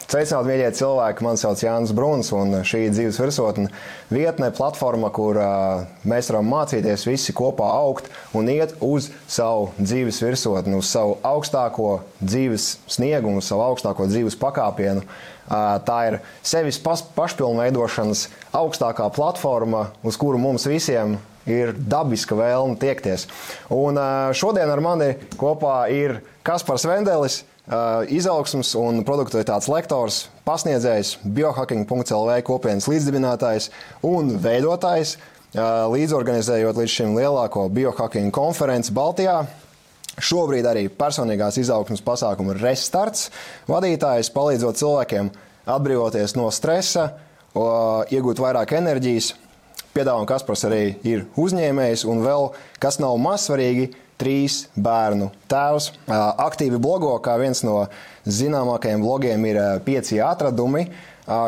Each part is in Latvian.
Sveicināti, mīļie cilvēki! Mani sauc Jānis Bruns, un šī ir dzīves virsotne vietne, platforma, kur mēs varam mācīties visi kopā augt un iet uz savu dzīves virsotni, uz savu augstāko dzīves sniegumu, uz savu augstāko dzīves pakāpienu. Tā ir sevis pašpilnveidošanas augstākā platforma, uz kuru mums visiem ir dabiska vēlme tiekties. Un šodien ar mani kopā ir Kaspars Vendelis, izaugsmes un produktivitātes lektors, pasniedzējs, biohacking.lv kopienas līdzdibinātājs un veidotājs, līdzorganizējot līdz šim lielāko biohacking konferenci Baltijā. Šobrīd arī personīgās izaugsmes pasākuma Restarts vadītājs, palīdzot cilvēkiem atbrīvoties no stresa, iegūt vairāk enerģijas. Piedāvājam, Kaspars arī ir uzņēmējs un vēl, kas nav mazsvarīgi, 3 bērnu tēvs. Aktīvi blogo, kā viens no zināmākajiem blogiem ir 5 atradumi,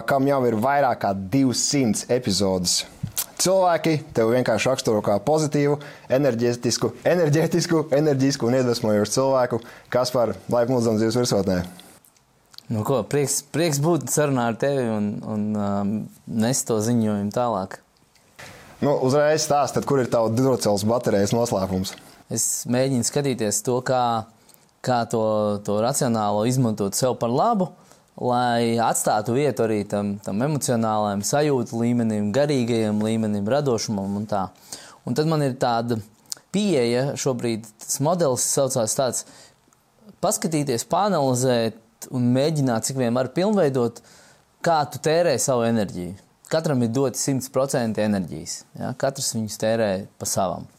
kam jau ir vairāk kā 200 epizodes. Cilvēki tev vienkārši raksturo kā pozitīvu, enerģētisku un iedvesmojošu cilvēku. Kaspar, laipni lūdzam dzīves virsotnē. Nu ko, prieks būt sarunā ar tevi un nest to ziņojumu tālāk. Uzreiz stāst, kur ir tava Duracell baterijas noslēpums? Es mēģinu skatīties to, kā to racionālo izmantot sev par labu, lai atstātu vietu arī tam emocionālajam sajūtu līmenim, garīgajam līmenim, radošumam un tā. Un tad man ir tāda pieeja šobrīd, tas modelis saucās tāds, paskatīties, pāanalizēt un mēģināt cik vien var pilnveidot, kā tu tērē savu enerģiju. Katram ir doti 100% enerģijas, ja? Katrs viņus tērē pa savam.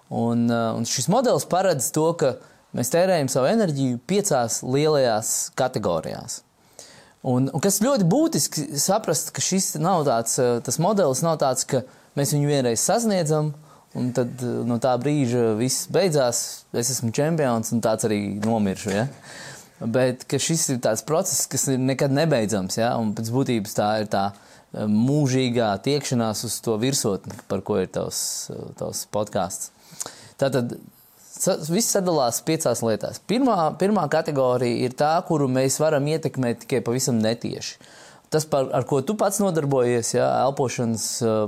Un šis modelis paredz to, ka mēs tērējam savu enerģiju 5 lielajās kategorijās. Un kas ļoti būtiski saprast, ka šis nav tāds, tas modelis nav tāds, ka mēs viņu vienreiz sasniedzam, un tad no tā brīža viss beidzās, es esmu čempions un tāds arī nomiršu, ja? Bet ka šis ir tāds process, kas ir nekad nebeidzams, ja? Un pēc būtības tā ir tā mūžīgā tiekšanās uz to virsotni, par ko ir tavs podcasts. Tātad viss sadalās 5 lietās. Pirmā kategorija ir tā, kuru mēs varam ietekmēt tikai pavisam netieši. Tas, ar ko tu pats nodarbojies, ja, elpošanas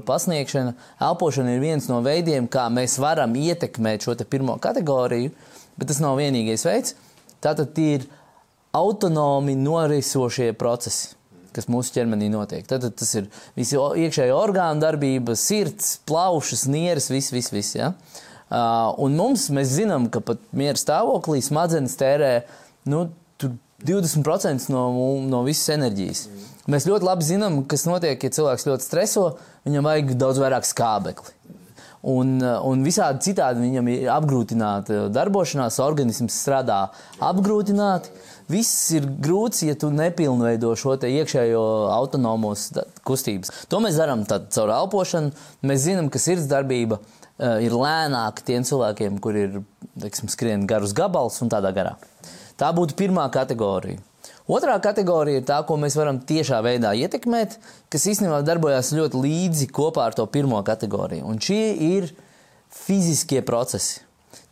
pasniegšana. Elpošana ir viens no veidiem, kā mēs varam ietekmēt šo te pirmo kategoriju, bet tas nav vienīgais veids. Tātad tie ir autonomi norisošie procesi, kas mūsu ķermenī notiek. Tātad tas ir visi iekšējo orgānu darbība, sirds, plaušas, nieres, viss, ja. Un mēs zinām, ka pat miera stāvoklī smadzenes tērē 20% no visas enerģijas. Mēs ļoti labi zinām, kas notiek, ja cilvēks ļoti streso, viņam vajag daudz vairāk skābekli. Un visādi citādi viņam ir apgrūtināta darbošanās, organisms strādā apgrūtināti. Viss ir grūts, ja tu nepilnveido šo te iekšējo autonomos kustības. To mēs darām caur elpošanu. Mēs zinām, ka sirds darbība ir lēnāk tiem cilvēkiem, kur ir, skrien garus gabals un tādā garā. Tā būtu pirmā kategorija. Otrā kategorija ir tā, ko mēs varam tiešā veidā ietekmēt, kas īstenībā darbojās ļoti līdzi kopā ar to pirmo kategoriju. Un šie ir fiziskie procesi.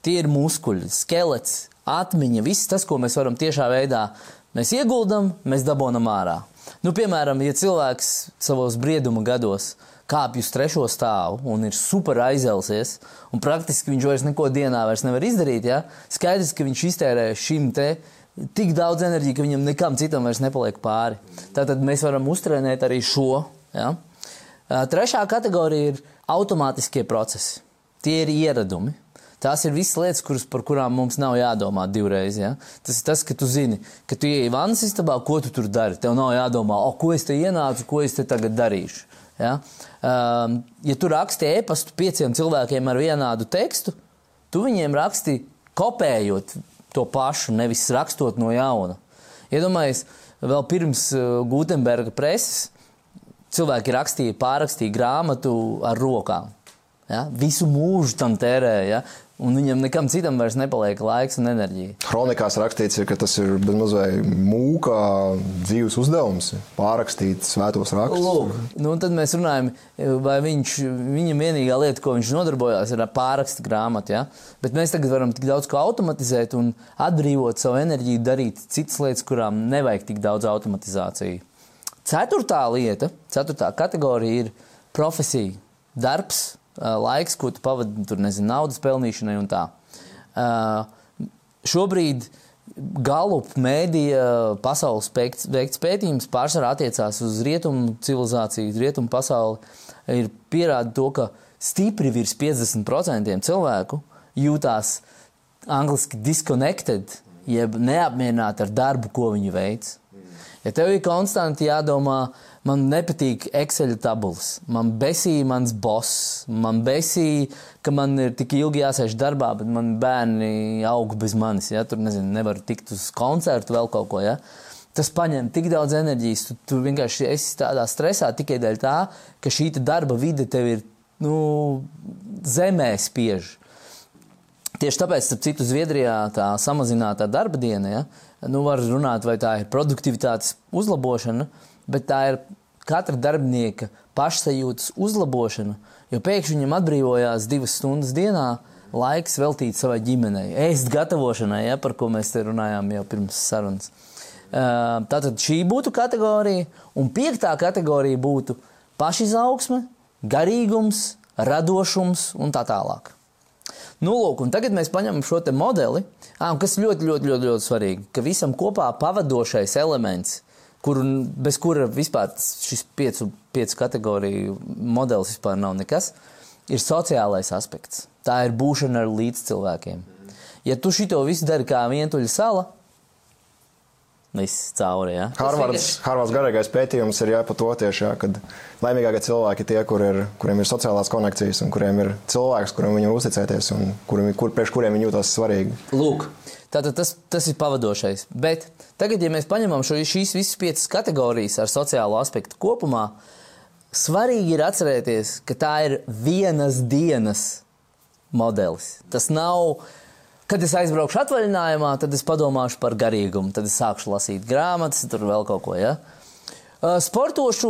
Tie ir muskuļi, skelets, atmiņa, viss tas, ko mēs varam tiešā veidā. Mēs ieguldam, mēs dabonam ārā. Piemēram, ja cilvēks savos brieduma gados kāpj uz 3. stāvu un ir super aizelsies, un praktiski viņš vairs neko dienā vairs nevar izdarīt, ja? Skaidrs, ka viņš iztērē šim te tik daudz enerģiju, ka viņam nekam citam vairs nepaliek pāri. Tātad mēs varam uztrenēt arī šo. Ja? Trešā kategorija ir automātiskie procesi. Tie ir ieradumi. Tās ir visas lietas, par kurām mums nav jādomā 2 reizes. Ja? Tas ir tas, ka tu zini, ka tu ieej vannas istabā, ko tu tur dari. Tev nav jādomā, ko es te ienācu, ko es te tagad darīšu. Ja? Ja tu raksti e-pastu 5 cilvēkiem ar vienādu tekstu, tu viņiem raksti kopējot to pašu, nevis rakstot no jauna. Iedomājies, vēl pirms Gutenberga preses cilvēki pārrakstīja grāmatu ar rokām. Ja? Visu mūžu tam tērēja. Ja? un viņam nekam citam vairs nepaliek laiks un enerģija. Kronikās rakstīts, ka tas ir bezmazliet mūka dzīves uzdevums pārrakstīt svētos rakstus. Lūk, nu tad mēs runājam, vai viņam vienīgā lieta, ko viņš nodarbojās, ir pārraksta grāmatu, ja? Bet mēs tagad varam tik daudz ko automatizēt un atbrīvot savu enerģiju, darīt citas lietas, kurām nevajag tik daudz automatizāciju. Ceturtā kategorija ir profesija, darbs, laiks, ko tu pavadi, tur nezinu, naudas pelnīšanai un tā. Šobrīd Gallup mēdīja pasaules veikts pētījums pārsvarā attiecās uz rietumu civilizāciju, rietumu pasauli, ir pierāda to, ka stipri virs 50% cilvēku jūtās angliski disconnected, jeb neapmierināti ar darbu, ko viņi veic. Ja tev ir konstanti jādomā, man nepatīk Excel tabulas, man besīja mans boss, man besīja, ka man ir tik ilgi jāsēž darbā, bet man bērni aug bez manis, ja? Tur, nezinu, nevaru tikt uz koncertu, vēl kaut ko, ja? Tas paņem tik daudz enerģijas, tu vienkārši esi tādā stresā tikai dēļ tā, ka šī darba vide tev ir, zemē spiež. Tieši tāpēc, starp citu, Zviedrijā tā samazinātā darba diena, ja? Var runāt, vai tā ir produktivitātes uzlabošana, bet tā ir katra darbinieka pašsajūtas uzlabošana, jo pēkšņi viņam atbrīvojās 2 stundas dienā laiks veltīt savai ģimenei, ēst gatavošanai, ja, par ko mēs te runājām jau pirms sarunas. Tātad šī būtu kategorija, un 5. kategorija būtu pašizaugsme, garīgums, radošums un tā tālāk. Lūk, un tagad mēs paņemam šo te modeli, un kas ļoti svarīgi, ka visam kopā pavadošais elements, bez kura vispār šis 5 kategoriju modelis vispār nav nekas, ir sociālais aspekts. Tā ir būšana ar līdzcilvēkiem. Ja tu šito visu dari kā vientuļa sala, viss cauri, ja? Harvards garīgais pētījums ir par to tieši, kad laimīgākie cilvēki tie, kuriem ir sociālās konekcijas un kuriem ir cilvēks, kuram viņi var uzticēties un priekš kuriem viņi jūtas svarīgi. Lūk, tātad tas ir pavadošais. Bet tagad, ja mēs paņemam šīs visas 5 kategorijas ar sociālo aspektu kopumā, svarīgi ir atcerēties, ka tā ir vienas dienas modelis. Tas nav... Kad es aizbraukšu atvaļinājumā, tad es padomāšu par garīgumu, tad es sākšu lasīt grāmatas, tur vēl kaut ko, ja. Sportošu,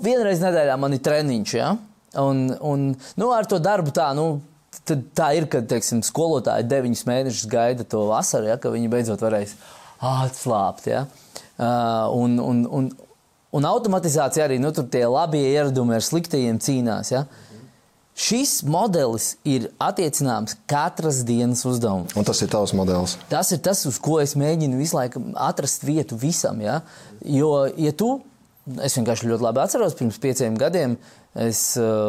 vienreiz nedēļā man ir treniņš, ja. Un ar to darbu tad tā ir, kad, teiksim, skolotāji 9 mēnešus gaida to vasaru, ja, ka viņi beidzot varēs atslāpt, ja. Un automatizācija arī, tur tie labie ieradumi ar sliktajiem cīnās, ja. Šis modelis ir attiecināms katras dienas uzdevums. Un tas ir tavs modelis? Tas ir tas, uz ko es mēģinu visu laiku atrast vietu visam, ja? Jo, es vienkārši ļoti labi atceros, pirms 5 gadiem es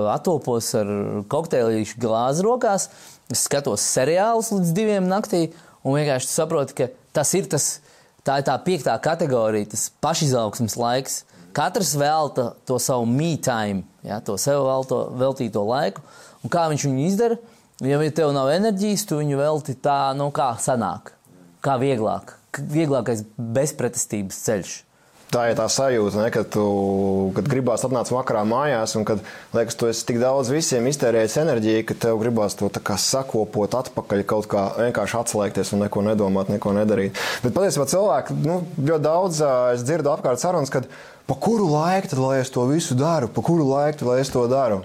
atopos ar kokteilīšu glāzi rokās, es skatos seriālus līdz 2 naktī, un vienkārši saprotu, ka tā ir tā 5. kategorija, tas pašizaugsmes laiks. Katrs velta to savu me time, ja, to sev veltīto laiku, un kā viņš viņu izdara, ja tev nav enerģijas, tu viņu velti tā, kā sanāk, kā vieglākais bezpretestības ceļš. Tā ir tā sajūta, ne, kad gribās atnāc vakarā mājās, un kad, liekas, tu esi tik daudz visiem iztērējis enerģiju, ka tev gribās to tā kā sakopot atpakaļ, kaut kā vienkārši atslēgties un neko nedomāt, neko nedarīt. Bet patiesībā cilvēki, ļoti daudz es dzirdu apkārt sarunas, kad pa kuru laiku tad, lai es to visu daru? Pa kuru laiku, lai es to daru?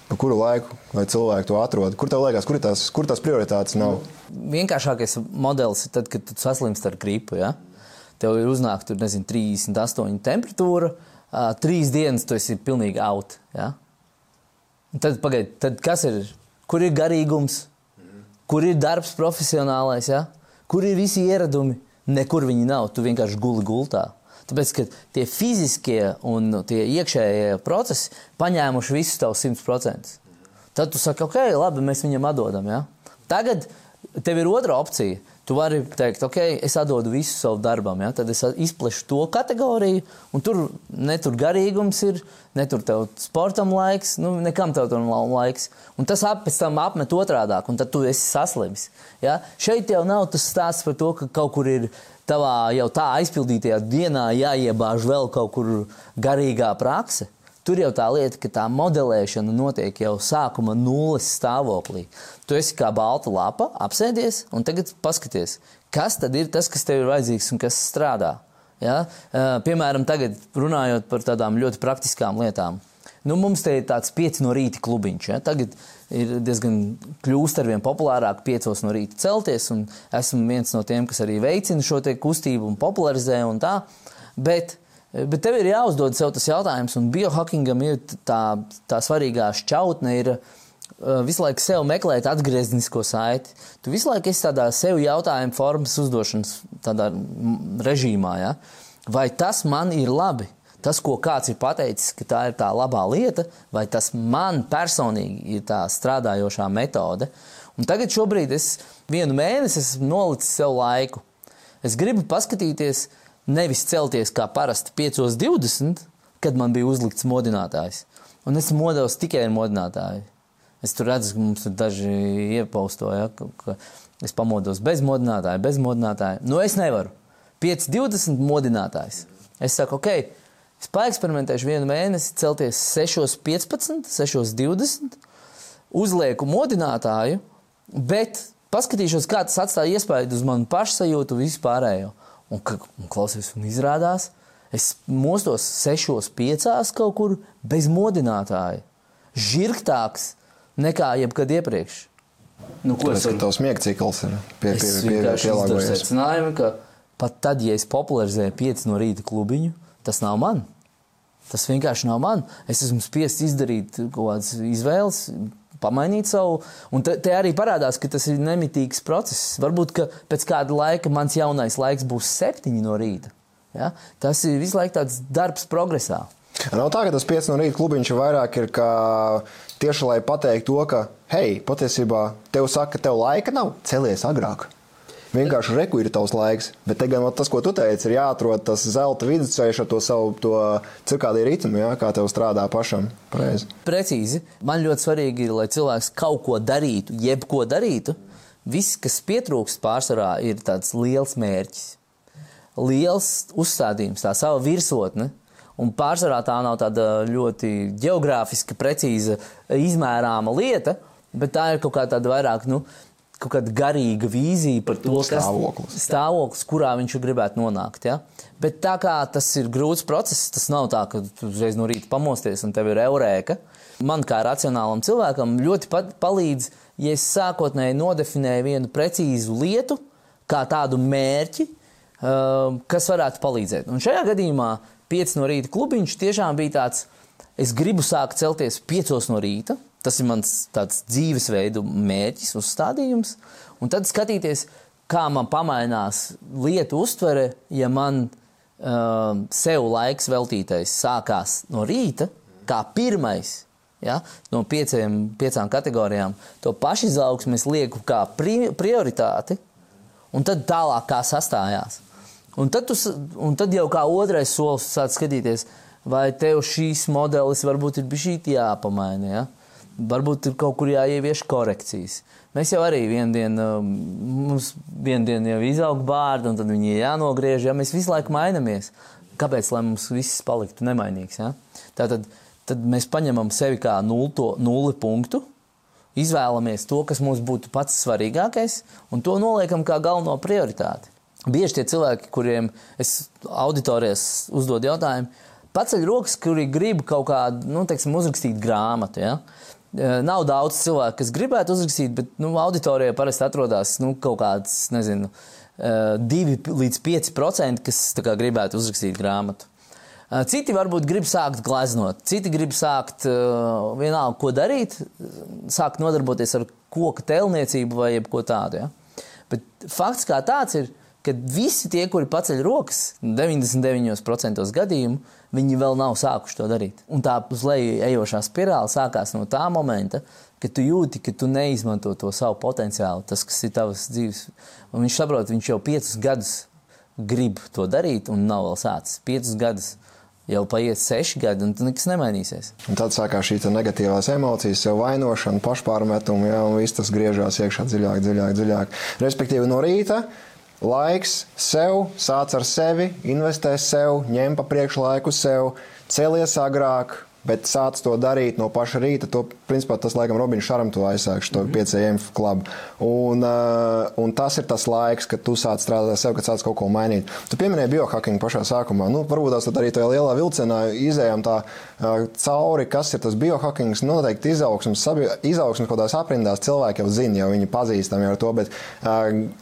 Pa kuru laiku, lai cilvēki to atrod? Kur tev liekas, kur tās prioritātes nav? Vienkāršākais modelis ir tad, kad tu saslimst ar gripu, ja? Tev ir uznāk, 38 temperatūra, 3 dienas tu esi pilnīgi out, ja? Tad kas ir? Kur ir garīgums? Kur ir darbs profesionālais, ja? Kur ir visi ieradumi? Nekur viņi nav, tu vienkārši guli gultā. Tāpēc, ka tie fiziskie un tie iekšējie procesi paņēmuši visus tavus 100%. Tad tu saki, ok, labi, mēs viņam atdodam, ja? Tagad tev ir otra opcija. Tu vari teikt, ok, es atdodu visu savu darbam, ja? Tad es izplešu to kategoriju, un tur garīgums ir, tur tev sportam laiks, nekam tev tur nav laiks. Un tas pēc tam apmet otrādāk, un tad tu esi saslimis. Ja? Šeit jau nav tas stāsts par to, ka kaut kur ir tavā jau tā aizpildītajā dienā jāiebāž vēl kaut kur garīgā prakse. Tur jau tā lieta, ka tā modelēšana notiek jau sākuma nulles stāvoklī. Tu esi kā balta lapa, apsēdies un tagad paskaties, kas tad ir tas, kas tev ir vajadzīgs un kas strādā. Ja? Piemēram, tagad runājot par tādām ļoti praktiskām lietām. Mums te ir tāds 5 no rīta klubiņš. Ja? Tagad ir diezgan kļūst arvien populārāk 5 no rīta celties, un esmu viens no tiem, kas arī veicina šo te kustību un popularizē un tā. Bet tev ir jāuzdod sev tas jautājums, un biohackingam ir tā svarīgā šķautne ir visu laiku sev meklēt atgrieznisko saiti. Tu visu laiku esi tādā sev jautājumu formas uzdošanas tādā režīmā. Ja? Vai tas man ir labi? Tas, ko kāds ir pateicis, ka tā ir tā labā lieta, vai tas man personīgi ir tā strādājošā metode. Un tagad šobrīd es 1 mēnesi esmu nolicis sev laiku. Es gribu paskatīties, nevis celties kā parasti 5:20, kad man bija uzlikts modinātājs. Un es modos tikai ar modinātāju. Es tur redzu, ka mums tur daži iepausto, ja, ka es pamodos bez modinātāja. Es nevaru. 5:20 modinātājs. Es saku, ok, es paeksperimentēšu 1 mēnesi, celties 6:15, 6:20, uzlieku modinātāju, bet paskatīšos, kā tas atstāja iespēju uz manu pašsajūtu vispārējo. Un klausies, un izrādās, es mostos 6:05 kaut kur bez modinātāja. Žirgtāks nekā jebkad iepriekš. Tas, ka tavs miega cikls ir pielāgojies. Es secinājumu, ka pat tad, ja es popularizēju 5 no rīta klubiņu, tas nav man. Tas vienkārši nav man. Es esmu spiests izdarīt kaut kādas izvēles, pamainīt savu. Un te arī parādās, ka tas ir nemitīgs process. Varbūt, ka pēc kāda laika mans jaunais laiks būs 7 no rīta. Ja? Tas ir visu laiku tāds darbs progresā. Nav tā, ka tas 5 no rīta klubiņš vairāk ir kā tieši, lai pateiktu to, ka, hei, patiesībā tev saka, ka tev laika nav, celies agrāk. Vienkārši reku ir tavs laiks, bet te gan tas, ko tu teici, ir jāatrod tas zelta vidusceļš ar to savu cirkādiju ritmu, ja, kā tev strādā pašam. Precīzi. Man ļoti svarīgi ir, lai cilvēks kaut ko darītu, jebko darītu. Viss, kas pietrūkst pārsvarā, ir tāds liels mērķis. Liels uzstādījums, tā sava virsotne. Un pārsvarā tā nav tāda ļoti ģeogrāfiski precīza izmērāma lieta, bet tā ir kaut kā tāda vairāk, kaut kāda garīga vīzija par to, stāvoklis, kurā viņš gribētu nonākt. Ja? Bet tā kā tas ir grūts process, tas nav tā, ka tu uzreiz no rīta pamosties un tev ir eurēka. Man kā racionālam cilvēkam ļoti palīdz, ja es sākotnēji nodefinēju vienu precīzu lietu, kā tādu mērķi, kas varētu palīdzēt. Un šajā gadījumā 5 no rīta klubiņš tiešām bija tāds, es gribu sākt celties 5 no rīta, tas ir mans tāds dzīvesveidu mērķis, uzstādījums, un tad skatīties, kā man pamainās lietu uztvere, ja man sev laiks veltītais sākās no rīta, kā pirmais, ja, no 5 kategorijām, to pašizaugsmi es lieku kā prioritāti, un tad tālāk kā sastājās. Un tad jau kā otrais solis sāc skatīties, vai tev šīs modelis varbūt ir bišķīt jāpamaina, ja? Varbūt ir kaut kur jāievieš korekcijas. Mēs jau arī mums vienu dienu jau izaug bārdi, un tad viņi jānogriež, ja mēs visu laiku mainamies. Kāpēc, lai mums viss paliktu nemainīgs, ja? Tad mēs paņemam sevi kā nulli punktu, izvēlamies to, kas mums būtu pats svarīgākais, un to noliekam kā galveno prioritāti. Bieži tie cilvēki, kuriem es auditorijas uzdod jautājumu, paceļ rokas, kuri grib kaut kādu, uzrakstīt grāmatu, ja? Nav daudz cilvēku, kas gribētu uzrakstīt, bet, auditorijā parasti atrodās, kaut kāds, 2 līdz 5%, kas tā kā gribētu uzrakstīt grāmatu. Citi varbūt grib sākt gleznot, citi grib sākt vienalga, ko darīt, sākt nodarboties ar koka tēlniecību vai jebko tādu, ja? Bet fakts kā tāds ir, ka visi tie, kuri paceļ rokas, 99% gadījumu, viņi vēl nav sākuši to darīt. Un tā uz leju ejošā spirāla sākās no tā momenta, ka tu jūti, ka tu neizmanto to savu potenciālu, tas, kas ir tavas dzīves. Un viņš saprot, viņš jau 5 gadus grib to darīt un nav vēl sācis. 5 gadus jau paiet 6 gadi un nekas nemainīsies. Un tad sākās šī negatīvās emocijas, sev vainošana, pašpārmetumi, ja, un viss tas griežās iekšā dziļāk. Respektīvi no rīta laiks sev, sāc ar sevi, investē sev, ņem pa priekšu laiku sev, celies agrāk, bet sāc to darīt no paša rīta. To, principā, tas laikam Robins Šaram to aizsākš, to 5 AM klubu. Un tas ir tas laiks, kad tu sāc strādāt sev, kad sāc kaut ko mainīt. Tu pieminēji biohackingu pašā sākumā. Varbūt tās tad arī tajā lielā vilcienā izējām tā cauri, kas ir tas biohackings. Noteikti izaugsmes kaut kādās aprindās cilvēki jau zina, jau viņi pazīstami ar to, bet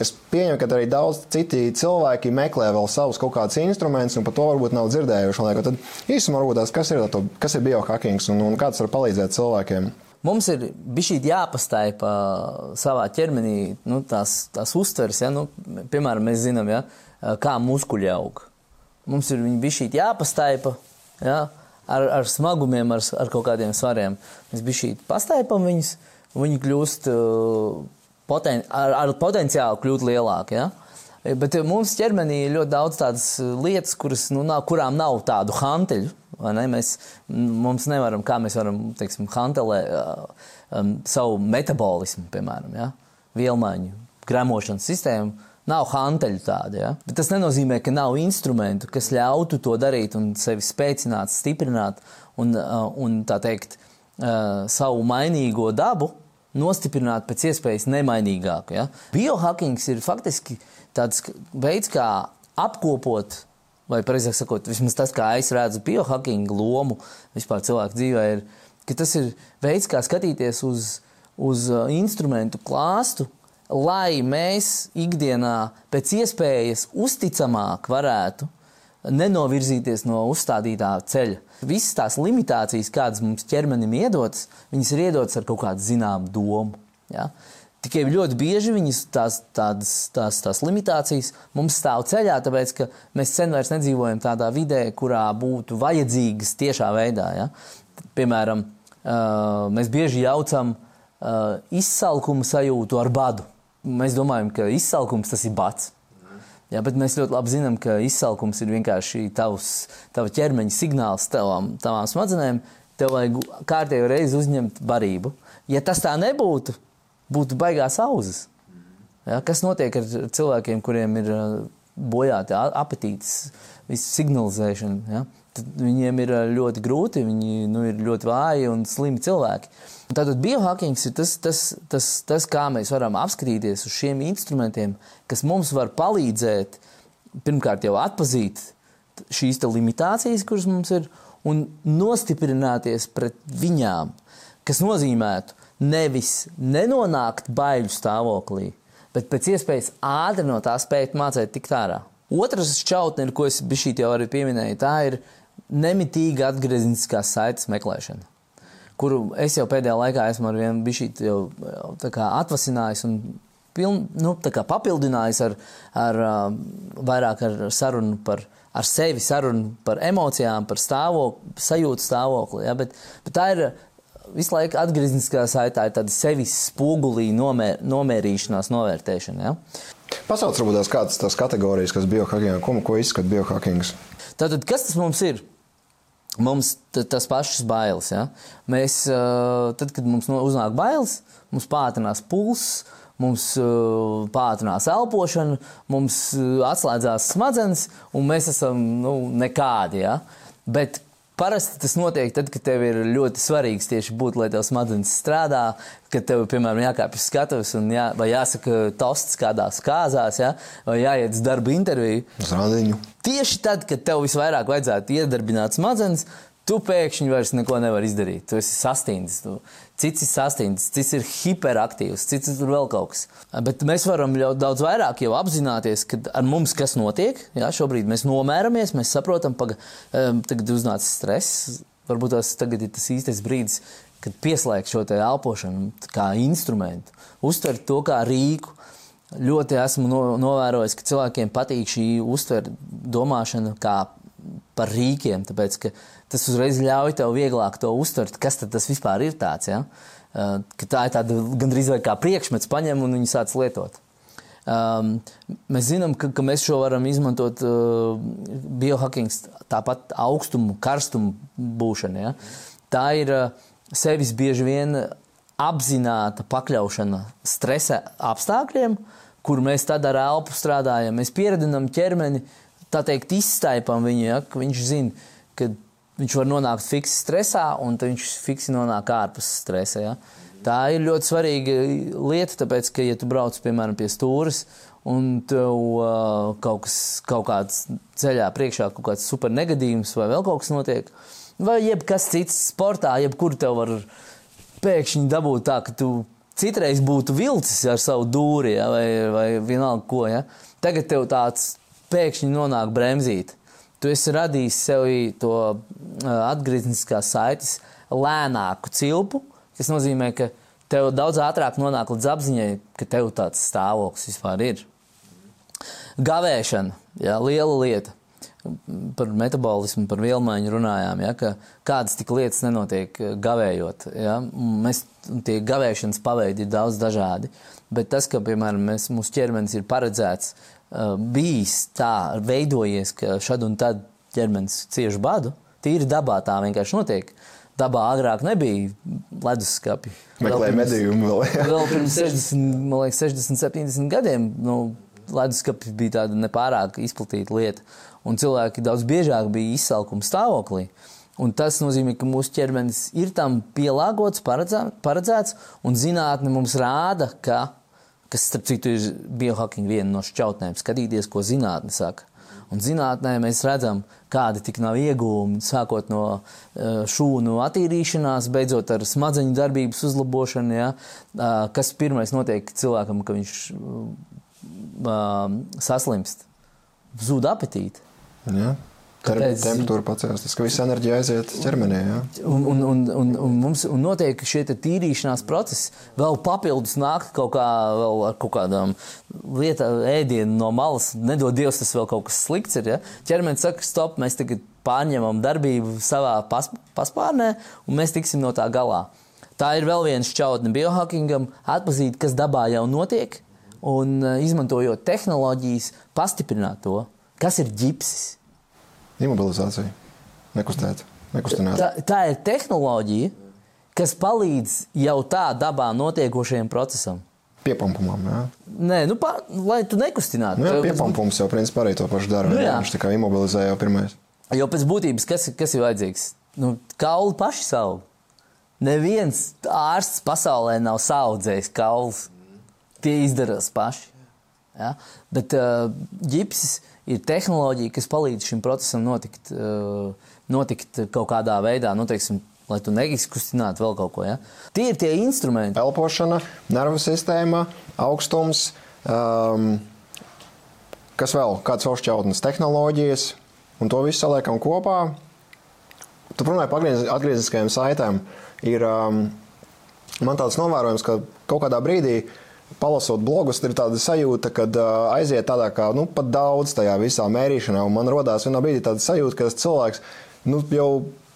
es pieņemu, ka arī daudz citi cilvēki meklē vēl savus kaut kādus instrumentus un par to varbūt nav dzirdējuši. Tad īsumā varbūt tās, kas ir biohackings un kā tas var palīdzēt cilvēkiem? Mums ir bišķīt jāpastaipa savā ķermenī tās uztveres. Ja? Piemēram, mēs zinām, ja? Kā muskuļi aug. Mums ir viņi bišķīt jāpastaipa, ja? ar smagumiem, ar kaut kādiem svariem. Mēs bišķīt pastaipam viņus, un viņi kļūst ar potenciālu kļūt lielāki. Ja? Bet mums ķermenī ir ļoti daudz tādas lietas, kurām nav tādu hanteļu. Mums nevaram, kā mēs varam, teiksim, hantelē savu metabolismu, piemēram, ja? Vielmaiņu, gremošanas sistēmu. Nav hanteļu tāda, ja? Bet tas nenozīmē, ka nav instrumentu, kas ļautu to darīt un sevi spēcināt, stiprināt un tā teikt, savu mainīgo dabu nostiprināt pēc iespējas nemainīgāku. Ja? Biohackings ir faktiski tāds veids, kā apkopot, vai pareizāk sakot, vismaz tas, kā es redzu biohackinga lomu vispār cilvēku dzīvē, ir, ka tas ir veids, kā skatīties uz instrumentu klāstu, lai mēs ikdienā pēc iespējas uzticamāk varētu nenovirzīties no uzstādītā ceļa. Visas tās limitācijas, kādas mums ķermenim iedotas, viņas ir iedotas ar kaut kādu zināmu domu. Ja? Tikai ļoti bieži viņas tās limitācijas mums stāv ceļā, tāpēc, ka mēs sen vairs nedzīvojam tādā vidē, kurā būtu vajadzīgas tiešā veidā. Ja? Piemēram, mēs bieži jaucam izsalkuma sajūtu ar badu. Mēs domājam, ka izsalkums tas ir bads. Ja, bet mēs ļoti labi zinām, ka izsalkums ir vienkārši tava ķermeņa signāls tavām smadzenēm. Tev vajag kārtējo reizi uzņemt barību. Ja tas tā nebūtu, būtu baigās auzas. Ja, kas notiek ar cilvēkiem, kuriem ir bojāti apetītes, visu signalizēšana? Ja? Tad viņiem ir ļoti grūti, viņi ir ļoti vāji un slimi cilvēki. Tātad biohackings ir tas, kā mēs varam apskatīties uz šiem instrumentiem, kas mums var palīdzēt, pirmkārt jau atpazīt šīs limitācijas, kuras mums ir, un nostiprināties pret viņām, kas nozīmētu nevis nenonākt baiļu stāvoklī, bet pēc iespējas ātri no tā spēt mācēt tikt ārā. Otrs šķautne, ko es bišķīt jau arī pieminēju, tā ir nemitīga atgriezniskās saites meklēšana, kuru es jau pēdējā laikā esmu ar vienu bišķīt jau tā kā atvasinājis un papildinājis vairāk ar sarunu ar sevi, sarunu par emocijām, par sajūtu stāvokli. Ja? Bet tā ir visu laiku atgriezniskā saite, tā ir tāda sevis spogulī nomērīšanās, novērtēšana. Ja? Pasauc varbūt kādas tās kategorijas, kas biohackingā, ko izskata biohackings? Tātad, kas tas mums ir? Mums tas pašas bailes. Ja? Mēs, tad, kad mums uznāk bailes, mums pātrinās pulss, mums pātrinās elpošana, mums atslēdzās smadzenes, un mēs esam nekādi. Ja? Bet parasti tas notiek tad, kad tev ir ļoti svarīgs tieši būt, lai tev smadzenes strādā, kad tev, piemēram, jākāpj uz skatuves un vai jāsaka tosts kādās kāzās, ja? Vai jāiet uz darba interviju. Uz rādiņu. Tieši tad, kad tev visvairāk vajadzētu iedarbināt smadzenes, tu pēkšņi vairs neko nevar izdarīt. Tu esi sastīndis. Cits ir sastīndis, cits ir hiperaktīvs, cits ir vēl kaut kas. Bet mēs varam daudz vairāk jau apzināties, kad ar mums kas notiek. Ja? Šobrīd mēs nomēramies, mēs saprotam, tagad uznāca stress. Varbūt tagad ir tas īstais brīdis, kad pieslēgt šo te elpošanu kā instrumentu. Uztvert to kā rīku. Ļoti esmu novērojis, ka cilvēkiem patīk šī uztver domāšana kā par rīkiem, tāpēc, ka tas uzreiz ļauj tev vieglāk to uztvert, kas tad tas vispār ir tāds, ja? Ka tā ir tāda gandrīz vai kā priekšmets paņem un viņu sāc lietot. Mēs zinām, ka mēs šo varam izmantot biohackings, tāpat augstumu, karstumu būšana. Ja? Tā ir sevis bieži vien apzināta pakļaušana stresa apstākļiem, kur mēs tad ar elpu strādājam. Mēs pieredinam ķermeni, tā teikt, izstaipam viņu, ja? Ka viņš zina, ka viņš var nonākt fiksi stresā, un tad viņš fiksi nonāk ārpus stresa. Ja? Tā ir ļoti svarīga lieta, tāpēc, ka, ja tu brauc, piemēram, pie stūres, un tev kaut kāds ceļā priekšā, kaut kāds super negadījums vai vēl kaut kas notiek, vai jebkas cits sportā, jebkur tev var pēkšņi dabūt tā, ka tu citreiz būtu vilcis ar savu dūri, ja, vai vienalga ko, ja. Tagad tev tāds pēkšņi nonāk bremzīt. Tu esi radījis sevi to atgriezniskās saites lēnāku cilpu, kas nozīmē, ka tev daudz ātrāk nonāk līdz apziņai, ka tev tāds stāvoklis vispār ir. Gavēšana, ja, liela lieta. Par metabolismu, par vielmaiņu runājām, ja, ka kādas tik lietas nenotiek gavējot. Ja. Tie gavēšanas paveidi ir daudz dažādi, bet tas, ka, piemēram, mūsu ķermenis ir paredzēts, bijis tā, veidojies, ka šad un tad ķermenis cieš badu, tīri dabā tā vienkārši notiek. Dabā agrāk nebija leduskapi. Meklēja medījumu vēl. Vēl pirms 60-70 gadiem, leduskapi bija tāda nepārāk izplatīta lieta. Un cilvēki daudz biežāk bija izsalkuma stāvoklī. Un tas nozīmē, ka mūsu ķermenis ir tam pielāgots, paredzēts, un zinātne mums rāda, kas starp citu ir biohacking viena no šķautnēm, skatīties, ko zinātne saka. Un zinātnē mēs redzam, kādi tik nav iegūmi, sākot no šūnu attīrīšanās, beidzot ar smadzeņu darbības uzlabošanu, ja, kas pirmais notiek cilvēkam, ka viņš saslimst, zūd apetīti. Ja. Temperatūra pacēlas, tas, ka viss enerģija aiziet ķermenī. Ja? Un notiek šie tīrīšanās procesi. Vēl papildus nāk kaut kādām ēdienu no malas. Nedod Dievs, tas vēl kaut kas slikts ir. Ja? Ķermenis saka, stop, mēs tagad pārņemam darbību savā paspārnē, un mēs tiksim no tā galā. Tā ir vēl viena šķautne biohackingam, atpazīt, kas dabā jau notiek, un izmantojot tehnoloģijas, pastiprināt to. Kas ir ģipsis? Imobilizācija. Nekustināt. Tā ir tehnoloģija, kas palīdz jau tā dabā notiekošajam procesam. Piepampumam, jā? Nē, lai tu nekustinātu. Jā, piepampums jau principā arī to pašu dara. Viņš tikai imobilizē jau pirmais. Jo pēc būtības, kas ir vajadzīgs? Kauli paši savu. Neviens ārsts pasaulē nav saudzējis kaulus. Tie izdarās paši. Ja? Bet ģipsis ir tehnoloģija, kas palīdz šim procesam notikt kaut kādā veidā, teiksim, lai tu neizkustinātu vēl kaut ko. Ja? Tie ir tie instrumenti. Elpošana, nervu sistēma, augstums, kas vēl? Kāds vēl šķautnes? Tehnoloģijas, un to visu saliekam kopā. Tu runāji par atgriezniskajām saitēm. Man tāds novērojums, ka kaut kādā brīdī palasot blogus, ir tāda sajūta, kad aiziet tādā kā, pat daudz tajā visā mērīšanā, un man rodās vienā brīdī tāda sajūta, ka cilvēks, jau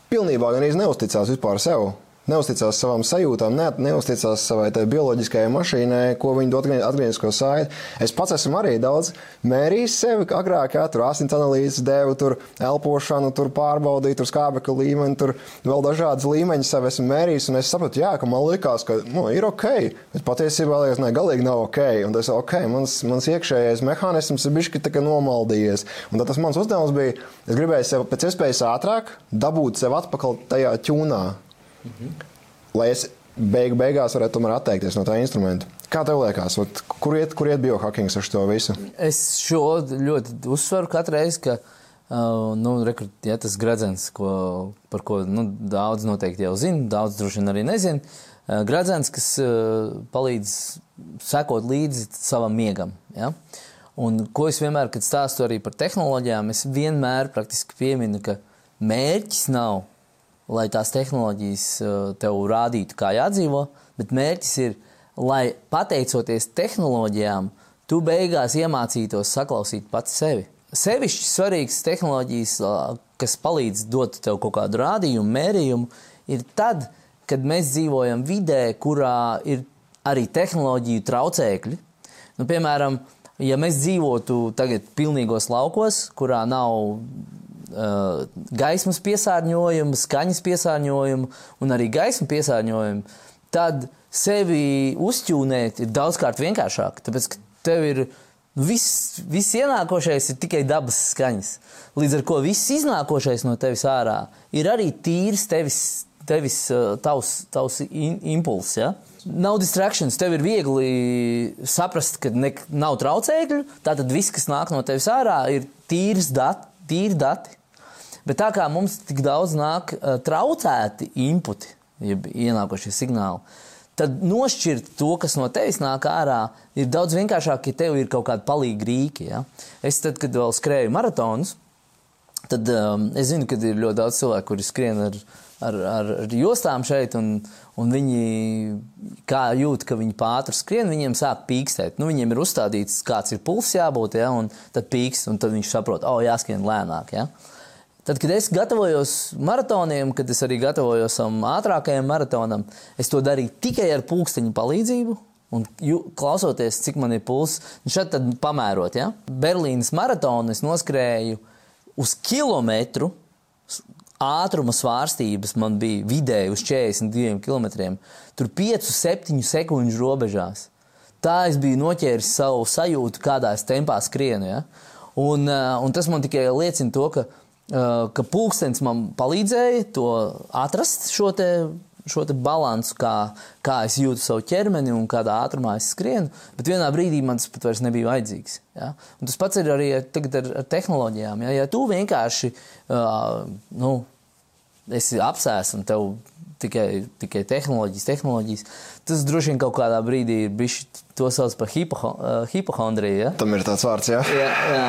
pilnībā gan neuzticās vispār sev. Neuzticās savām sajūtām, neuzticās savai bioloģiskajai mašīnai, ko viņi dod atgrieznisko saiti. Es pats esmu arī daudz mērījis sevi agrāk, tur asins analīzes devu, tur elpošanu, tur pārbaudīju, tur skābekļa līmeni, tur vēl dažādas līmeņas sev esmu mērījis, un es sapratu, ka man likās, ka ir ok, bet patiesībā liekas, galīgi nav ok, un tas mans iekšējais mehānisms ir bišķi tā kā nomaldījies. Un tad tas mans uzdevums bija, es gribēju sev pēc iespējas ātrāk dabūt sev atpakaļ tajā ķūnā. Lai es beigās varētu tomēr atteikties no tā instrumenta. Kā tev liekas, kur iet biohackings ar šo visu? Es šo ļoti uzsveru katru reizi, ka tas gredzens, par ko daudz noteikti jau zina, daudz droši vien arī nezina. Gredzens, kas palīdz sekot līdzi savam miegam. Ja? Un ko es vienmēr, kad stāstu arī par tehnoloģijām, es vienmēr praktiski pieminu, ka mērķis nav, lai tās tehnoloģijas tev rādītu, kā jādzīvo, bet mērķis ir, lai pateicoties tehnoloģijām, tu beigās iemācītos saklausīt pats sevi. Sevišķi svarīgas tehnoloģijas, kas palīdz dot tev kaut kādu rādījumu, mērījumu, ir tad, kad mēs dzīvojam vidē, kurā ir arī tehnoloģiju traucēkļi. Piemēram, ja mēs dzīvotu tagad pilnīgos laukos, kurā nav gaismas piesārņojumu, skaņas piesārņojumu un arī gaismu piesārņojumu, tad sevi uzķūnēt ir daudzkārt vienkāršāk, tāpēc, ka tev ir Viss ienākošais ir tikai dabas skaņas. Līdz ar ko viss iznākošais no tevis ārā ir arī tīrs tavs impulss, ja? Nav distractions, tev ir viegli saprast, ka nav traucēkļu, tātad viss, kas nāk no tevis ārā, ir tīri dati. Bet tā kā mums tik daudz nāk traucēti inputi, jeb ienākošie signāli, tad nošķirt to, kas no tevis nāk ārā, ir daudz vienkāršāk, ja tev ir kaut kāda palīga rīki. Ja? Es tad, kad vēl skrēju maratonus, tad es zinu, ka ir ļoti daudz cilvēku, kuri skrien ar jostām šeit, un viņi, kā jūt, ka viņi pātri skrien, viņiem sāk pīkstēt. Viņiem ir uzstādīts, kāds ir pulss jābūt, ja? Un tad pīkst, un tad viņš saprot, jāskrien lēnāk. Ja? Tad, kad es gatavojos maratoniem, kad es arī gatavojos ātrākajam maratonam, es to darīju tikai ar pulksteņu palīdzību un klausoties, cik man ir pulss. Un šeit tad pamērot, ja? Berlīnas maratonu es noskrēju uz kilometru, ātruma svārstības man bija vidēji uz 42 kilometriem, tur 5-7 sekundžu robežās. Tā es biju noķēris savu sajūtu, kādā es tempā skrienu. Ja? Un tas man tikai liecina to, ka pulkstenis man palīdzēja to atrast šo te balansu, kā es jūtu savu ķermeni un kādā ātrumā es skrienu, bet vienā brīdī man tas pat vairs nebija vajadzīgs. Ja? Un tas pats ir arī tagad ar tehnoloģijām. Ja tu vienkārši esi apsēs un tev tikai tehnoloģijas, tas droši vien kaut kādā brīdī ir bišķi, to sauc par hipohondriju. Ja? Tam ir tāds vārds, jā? Jā.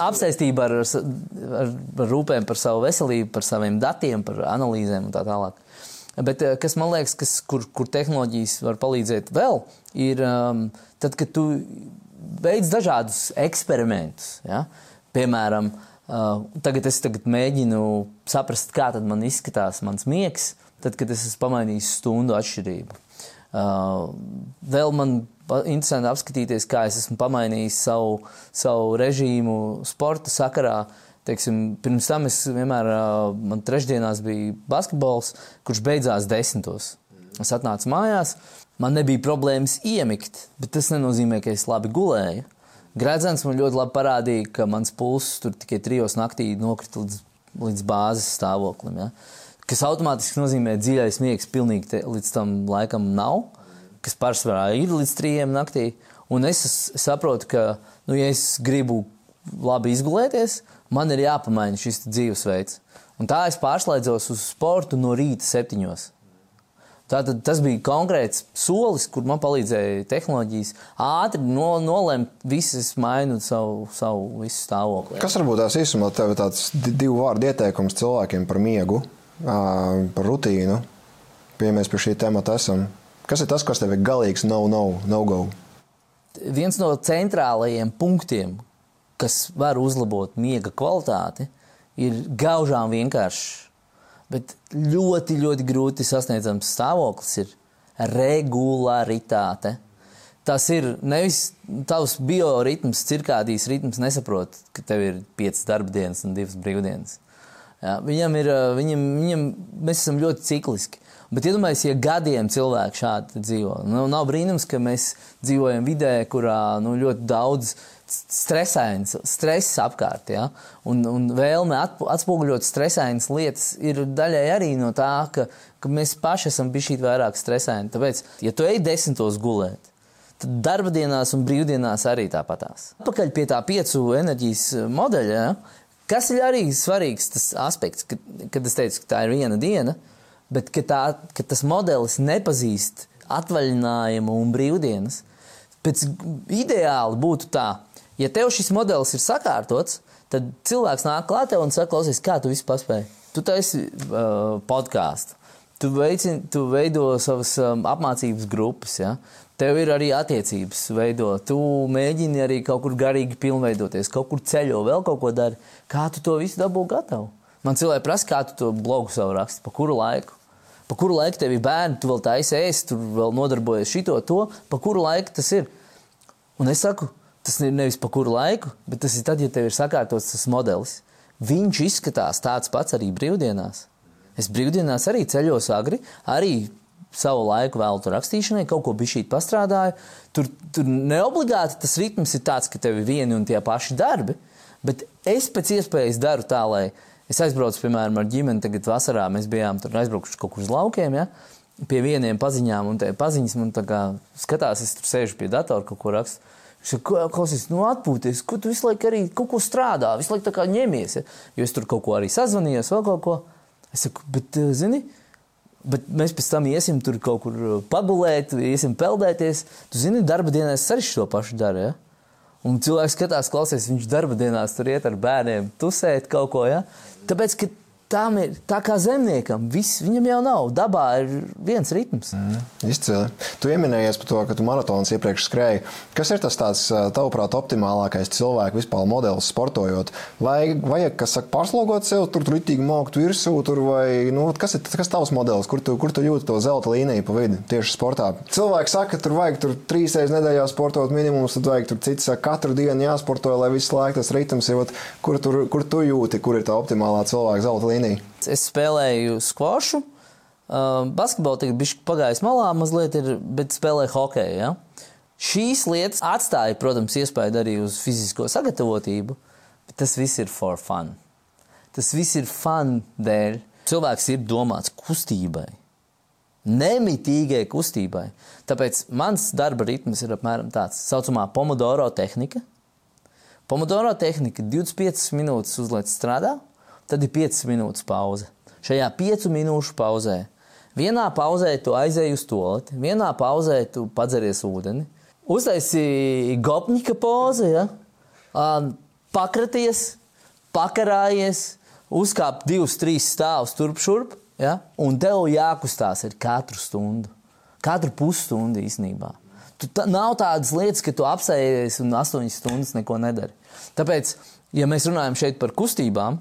Apsēstība ar rūpēm par savu veselību, par saviem datiem, par analīzēm un tā tālāk. Bet kas man liekas, kur tehnoloģijas var palīdzēt vēl, ir tad, kad tu beidz dažādus eksperimentus. Ja? Piemēram, tagad es mēģinu saprast, kā tad man izskatās mans miegs, tad, kad es esmu pamainījis stundu atšķirību. Vēl man interesanti apskatīties, kā es esmu pamainījis savu režīmu sporta sakarā. Teiksim, pirms tam man trešdienās bija basketbols, kurš beidzās 10. Es atnācu mājās, man nebija problēmas iemigt, bet tas nenozīmē, ka es labi gulēju. Gredzens man ļoti labi parādīja, ka mans pulss tur tikai 3 naktī nokrita līdz bāzes stāvoklim. Ja? Kas automātiski nozīmē dziļais miegs pilnīgi līdz tam laikam nav, kas pārsvarā ir līdz 3 naktī. Un es saprotu, ka, ja es gribu labi izgulēties, man ir jāpamaina šis dzīvesveids. Un tā es pārslēdzos uz sportu no rīta 7. Tātad tas bija konkrēts solis, kur man palīdzēja tehnoloģijas ātri nolemt visu, es mainu savu visu stāvokli. Kas varbūt tās īsumā tev ir tāds 2 vārdu ieteikums cilvēkiem par miegu, par rutīnu, ja mēs pie šī temata esam? Kas ir tas, kas tev ir galīgs no-go? Viens no centrālajiem punktiem, kas var uzlabot miega kvalitāti, ir gaužām vienkāršs, bet ļoti, ļoti grūti sasniedzams stāvoklis ir regularitāte. Tas ir nevis tavs bioritms, cirkādijas ritms nesaprot, ka tev ir 5 darba dienas un 2 brīvdienas. Ja, mēs esam ļoti cikliski. Bet iedomājies, ja gadiem cilvēki šādi dzīvo. Nav brīnums, ka mēs dzīvojam vidē, kurā ļoti daudz stress apkārt. Ja? Un vēlme atspoguļot stresainas lietas ir daļai arī no tā, ka mēs paši esam bišķīt vairāk stresaini. Tāpēc, ja tu ej 10. gulēt, tad darba dienās un brīvdienās arī tāpatās. Atpakaļ pie tā 5 enerģijas modeļa, ja? Kas ir arī svarīgs tas aspekts, kad es teicu, ka tā ir viena diena, bet ka tas modelis nepazīst atvaļinājumu un brīvdienas. Pēc ideāli būtu tā, ja tev šis modelis ir sakārtots, tad cilvēks nāk klāt tev un saka, klausies, kā tu visu paspēji? Tu taisi podkāstu, tu veido savas apmācības grupas, ja? Tev ir arī attiecības veido, tu mēģini arī kaut kur garīgi pilnveidoties, kaut kur ceļo, vēl kaut ko dari. Kā tu to visu dabū gatavu? Man cilvēki prasa, kā tu to blogu savu raksti, pa kuru laiku? Pa kuru laiku tev ir bērni, tu vēl taisi ēst, tu vēl nodarbojies šito, to, pa kuru laiku tas ir? Un es saku, tas ir nevis pa kuru laiku, bet tas ir tad, ja tev ir sakārtots tas modelis. Viņš izskatās tāds pats arī brīvdienās. Es brīvdienās arī ceļos agri, arī savu laiku veltu rakstīšanai, kaut ko bišķīt pastrādāju. Tur neobligāti tas ritms ir tāds, ka tev ir vieni un tie paši darbi, bet es pēc iespējas daru tā, lai es aizbraucu, piemēram, ar ģimeni, tagad vasarā mēs bijām tur aizbraukuši kaut kur uz laukiem, ja, pie vieniem paziņām, un tie paziņas man tā kā skatās, es tur sēžu pie datora, kaut ko rakstu. Viņš saka, klausies, atpūties, ko tu visu laiku arī kaut ko strādā, visu laiku tā kā ņemies, ja, jo es tur kaut ko arī sazvanījos, vēl kaut ko. Es saku, bet, zini, bet mēs pēc tam iesim tur kaut kur pagulēt, iesim peldēties. Tu zini, darba dienās arī to pašu dara, ja? Un cilvēks skatās, klausies, viņš darba dienās tur iet ar bērniem, tusēt kaut ko, ja? Tāpēc, ka tam ir tā kā zemniekam, viņam jau nav, dabā ir viens ritms. Izcili. Tu ieminējies par to, ka tu maratonus iepriekš skrēji. Kas ir tas tāds, tavuprāt, optimālākais cilvēku vispār modelis sportojot? Vai vajag, kas saka, pārslogot sev, tur ritīgi maukt virsū, tur vai, kas tavs modelis? Kur tu jūti to zelta līniju pa vidi tieši sportā? Cilvēki saka, ka tur vajag 3 reizes nedēļā sportot minimums, tad vajag tur cits saka, katru dienu jāsporto, lai visu laiku tas ritms ir. Kur tu jūti, kur ir tā optimālā cilvēka zelta līnija? Es spēlēju skvošu, basketbolu tagad bišķi pagājis malā mazliet, bet spēlēju hokeju. Ja? Šīs lietas atstāja, protams, iespēju arī uz fizisko sagatavotību, bet tas viss ir for fun. Tas viss ir fun dēļ. Cilvēks ir domāts kustībai, nemitīgai kustībai. Tāpēc mans darba ritms ir apmēram tāds, saucamā Pomodoro tehnika. Pomodoro tehnika 25 minūtes uzliec strādā, tad ir 5 minūtes pauze. Šajā 5 minūšu pauzē vienā pauzē tu aizēji uz tualeti, vienā pauzē tu padzeries ūdeni, uztaisi gopņika pozi, ja? Pakraties, pakarājies, uzkāp 2-3 stāvus turp šurp, ja? Un tev jākustās ir katru stundu, katru pusstundu īstenībā. Nav tādas lietas, ka tu apsējies un 8 stundas neko nedari. Tāpēc, ja mēs runājam šeit par kustībām,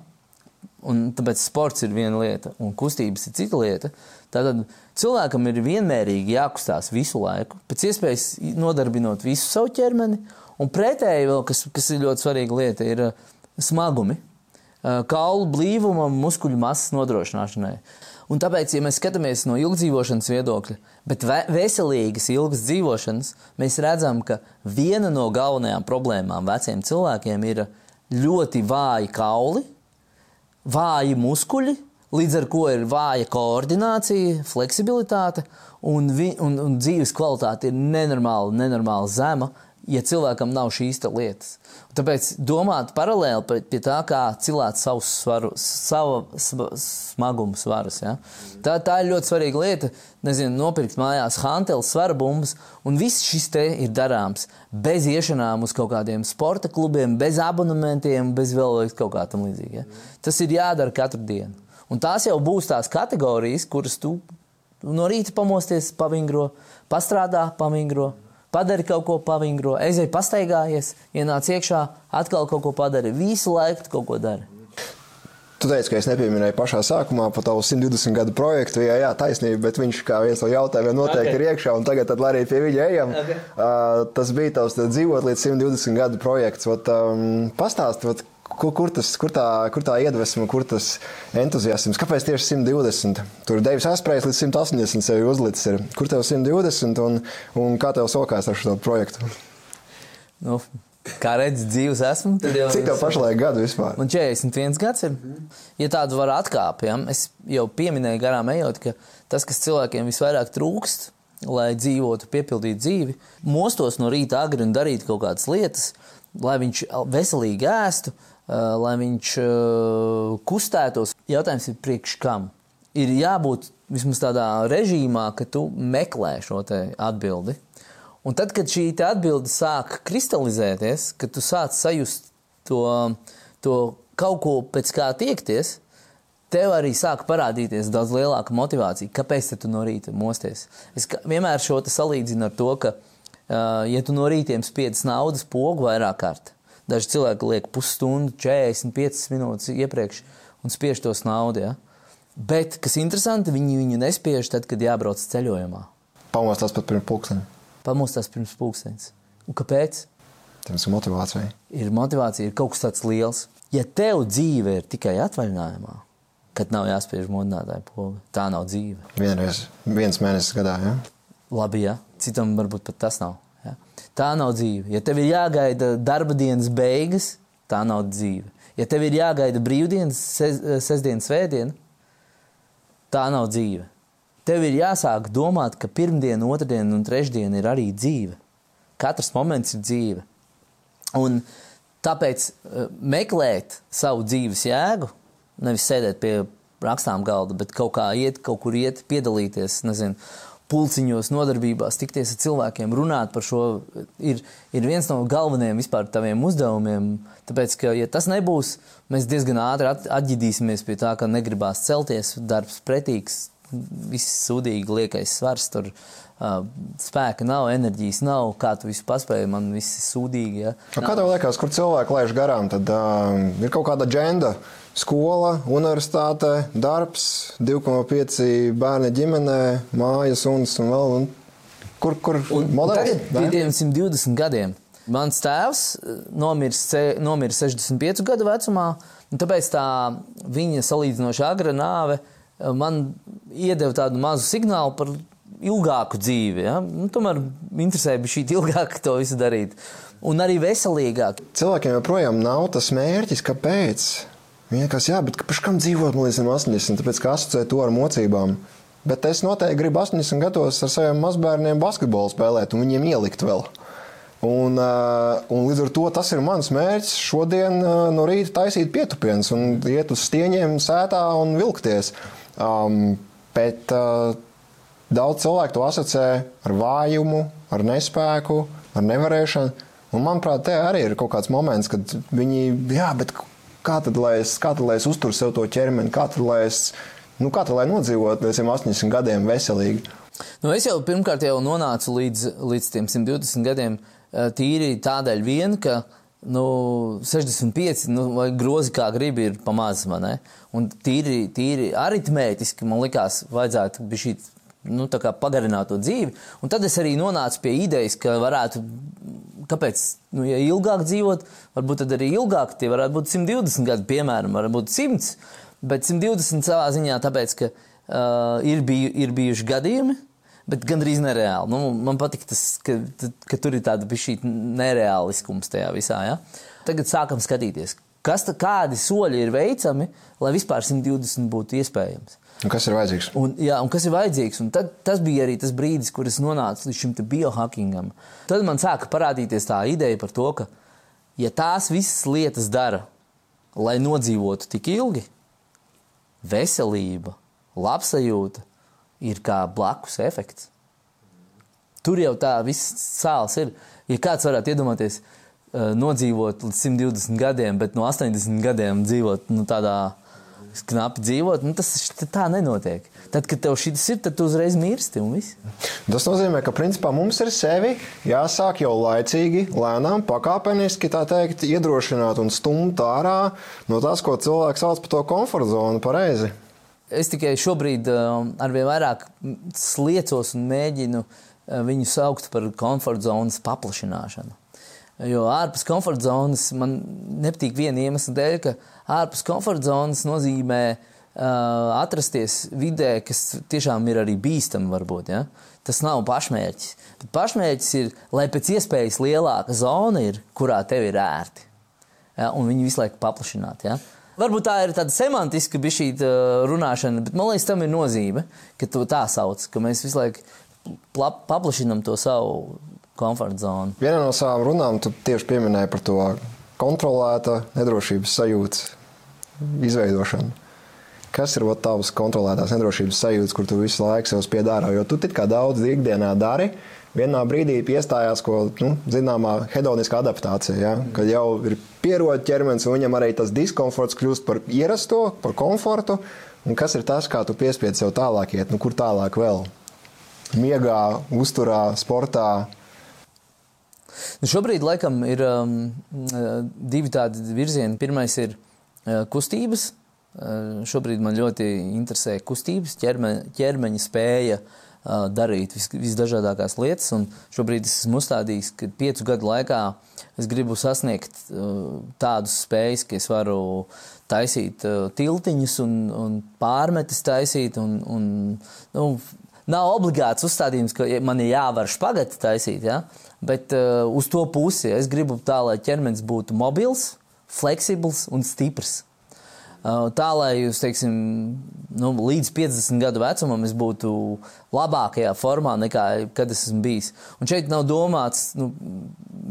un tāpēc sports ir viena lieta un kustības ir cita lieta, tad cilvēkam ir vienmērīgi jākustās visu laiku, pēc iespējas nodarbinot visu savu ķermeni, un pretēji vēl, kas ir ļoti svarīga lieta, ir smagumi, kaulu blīvumam, muskuļu masas nodrošināšanai. Un tāpēc, ja mēs skatāmies no ilgdzīvošanas viedokļa, bet veselīgas ilgas dzīvošanas, mēs redzam, ka viena no galvenajām problēmām veciem cilvēkiem ir ļoti vāji kauli, vāji muskuļi, līdz ar ko ir vāja koordinācija, fleksibilitāte un dzīves kvalitāte ir nenormāli zema, ja cilvēkam nav šīs lietas. Tāpēc domāt paralēli pie tā, kā cilāt savu smagumu svarus. Ja? Tā ir ļoti svarīga lieta. Nopirkt mājās hanteles, svara bumbas, un viss šis te ir darāms bez iešanām uz kaut kādiem sporta klubiem, bez abonementiem, bez vēl kaut kā tam līdzīgi. Ja? Tas ir jādara katru dienu. Un tās jau būs tās kategorijas, kuras tu no rīta pamosties, pavingro, pastrādā, pavingro, padari kaut ko pavingro, aizēj pastaigājies, ienāc iekšā, atkal kaut ko padari, visu laiku kaut ko dari. Tu teici, ka es nepieminēju pašā sākumā par tavu 120 gadu projektu, jā, taisnība, bet viņš kā viens no jautājumiem noteikti ir iekšā, un tagad tad arī pie viņa ejam. Tas bija tavs dzīvot līdz 120 gadu projekts. Pastāsti, kur tā iedvesma, kur tas entuziasms, kāpēc tieši 120? Tur Deivs Asprejs līdz 180 sevi uzlicis ir. Kur tev 120 un kā tev sokās ar šo projektu? Kā redzi, dzīves esmu. Cik tev pašlaik gadu vispār? Man 41 gads ir. Ja tādu var atkāpt, ja? Es jau pieminēju garām ejot, ka tas, kas cilvēkiem visvairāk trūkst, lai dzīvotu, piepildītu dzīvi, mostos no rīta agri un darītu kaut kādas lietas, lai viņš veselīgi ēstu, lai viņš kustētos. Jautājums ir priekš kam? Ir jābūt vismaz tādā režīmā, ka tu meklē šo te atbildi. Un tad, kad šī atbilde sāk kristalizēties, kad tu sāc sajust to kaut ko pēc kā tiekties, tev arī sāk parādīties daudz lielāka motivācija. Kāpēc tu no rīta mosties? Es vienmēr šo te salīdzinu ar to, ka, ja tu no rītiem spiedz naudas pogu vairāk kārt, daži cilvēki liek pusstundu, 45 minūtes iepriekš un spiež tos naudu, ja? Bet, kas interesanti, viņi viņu nespiež tad, kad jābrauc ceļojumā. Pamostās pat pirms pulksteni. Pamostās pirms pulkstenis. Un kāpēc? Tas ir motivācija. Ir motivācija, ir kaut kas tāds liels. Ja tev dzīve ir tikai atvaļinājumā, kad nav jāspiež modinātāja poga. Tā nav dzīve. Viens mēnesis gadā, ja? Labi, ja? Citam varbūt pat tas nav. Ja? Tā nav dzīve. Ja tev ir jāgaida darba dienas beigas, tā nav dzīve. Ja tev ir jāgaida brīvdienas, sestdienas, svētdiena, tā nav dzīve. Tev ir jāsāk domāt, ka pirmdiena, otrdiena un trešdiena ir arī dzīve. Katrs moments ir dzīve. Un tāpēc meklēt savu dzīves jēgu, nevis sēdēt pie rakstām galda, bet kaut kur iet, piedalīties, nezinu, pulciņos, nodarbībās, tikties ar cilvēkiem, runāt par šo, ir viens no galvenajiem vispār taviem uzdevumiem, tāpēc, ka, ja tas nebūs, mēs diezgan ātri atģidīsimies pie tā, ka negribās celties, darbs pretīgs, viss sūdīgi, liekais svars, tur spēka nav, enerģijas nav, kā tu visu paspēji, man viss ir sūdīgi, ja. Kā tev liekas, kur cilvēki laiž garām, tad ir kaut kāda dženda, skola, universitāte, darbs, 2,5 bērni ģimenē, mājas un vēl, kur modelis? Tagad pie 120 gadiem. Mans tēvs nomira 65 gadu vecumā, un tāpēc tā viņa salīdzinoši agra nāve man iedeva tādu mazu signālu par ilgāku dzīvi. Ja? Tomēr interesē bija šī ilgāk to visu darīt. Un arī veselīgāk. Cilvēkiem joprojām nav tas mērķis, kāpēc. Vienkārši, jā, bet par kam dzīvot līdz 80, tāpēc, ka asociē to ar mocībām. Bet es noteikti gribu 80 gados ar saviem mazbērniem basketbolu spēlēt un viņiem ielikt vēl. Un līdz ar to tas ir mans mērķis šodien no rīta taisīt pietupienus un iet uz stieņiem sētā un vilkties. Bet daudz cilvēku to asociē ar vājumu, ar nespēku, ar nevarēšanu. Un manuprāt, te arī ir kaut kāds moments, kad viņi, jā, bet kā tad, lai es uzturu sev to ķermeni, kā tad, lai nodzīvot līdz 80 gadiem veselīgi? Es jau pirmkārt nonācu līdz tiem 120 gadiem tīri tādēļ vien, ka 65, vai grozi kā gribi ir pamaz, vai ne? Un tīri aritmētiski man likās vajadzētu bišķīt, tā kā pagarināt to dzīvi. Un tad es arī nonācu pie idejas, ka varētu, kāpēc, ja ilgāk dzīvot, varbūt tad arī ilgāk, tie varētu būt 120 gadi, piemēram, varētu būt 100, bet 120 savā ziņā tāpēc, ka ir bijuši gadījumi, bet gandrīz nereāli. Man patīk tas, ka tur ir tāda bišķīt nereāliskums tajā visā, ja? Tagad sākam skatīties, kādi soļi ir veicami, lai vispār 120 būtu iespējams. Un kas ir vajadzīgs? Un kas ir vajadzīgs. Un tad tas bija arī tas brīdis, kur es nonācu līdz šim biohackingam. Tad man sāka parādīties tā ideja par to, ka ja tās visas lietas dara, lai nodzīvotu tik ilgi, veselība, labsajūta ir kā blakus efekts. Tur jau tā viss sāls ir. Ja kāds varētu iedomāties nodzīvot līdz 120 gadiem, bet no 80 gadiem dzīvot tādā knapi dzīvot, tas tā nenotiek. Tad, kad tev šis ir, tad tu uzreiz mirsti un viss. Tas nozīmē, ka principā mums ir sevi jāsāk jau laicīgi, lēnām, pakāpeniski, tā teikt, iedrošināt un stumt ārā no tās, ko cilvēks sauc par to komforta zonu, pareizi. Es tikai šobrīd arvien vairāk sliecos un mēģinu viņu saukt par komforta zonas paplašināšanu. Jo ārpus komforta zonas man nepatīk viena iemesla dēļ, ka ārpus komforta zonas nozīmē atrasties vidē, kas tiešām ir arī bīstami varbūt, ja? Tas nav pašmērķis. Bet pašmērķis ir, lai pēc iespējas lielāka zona ir, kurā tev ir ērti. Ja? Un viņi visu laiku paplašināt, ja? Varbūt tā ir tāda semantiska bišķīta runāšana, bet man liekas, tam ir nozīme, ka tu tā sauc, ka mēs visu laiku paplašinam to savu komforta zonu. Vienā no savām runām tu tieši pieminēji par to kontrolēta nedrošības sajūtas izveidošanu. Kas ir tavas kontrolētās nedrošības sajūtas, kur tu visu laiku sev spied ārā? Jo tu tik kā daudz ikdienā dari, vienā brīdī piestājās zināmā hedoniskā adaptācija, ja? Kad jau ir pierod ķermenis un viņam arī tas diskomforts kļūst par ierasto, par komfortu. Un kas ir tas, kā tu piespied sev tālāk iet? Kur tālāk vēl? Miegā, uzturā, sportā? Šobrīd laikam ir divi tādi virzieni. Pirmais ir kustības. Šobrīd man ļoti interesē kustības, ķermeņa spēja darīt visdažādākās lietas, un šobrīd es esmu uzstādījis, ka 5 gadu laikā es gribu sasniegt tādus spējas, ka es varu taisīt tiltiņus un pārmetis taisīt, nav obligāts uzstādījums, ka man ir jāvar špagati taisīt, ja? Bet uz to pusi es gribu tā, lai ķermenis būtu mobils, fleksibls un stiprs. Tā, lai jūs, teiksim, līdz 50 gadu vecumam es būtu labākajā formā nekā, kad es esmu bijis. Un šeit nav domāts,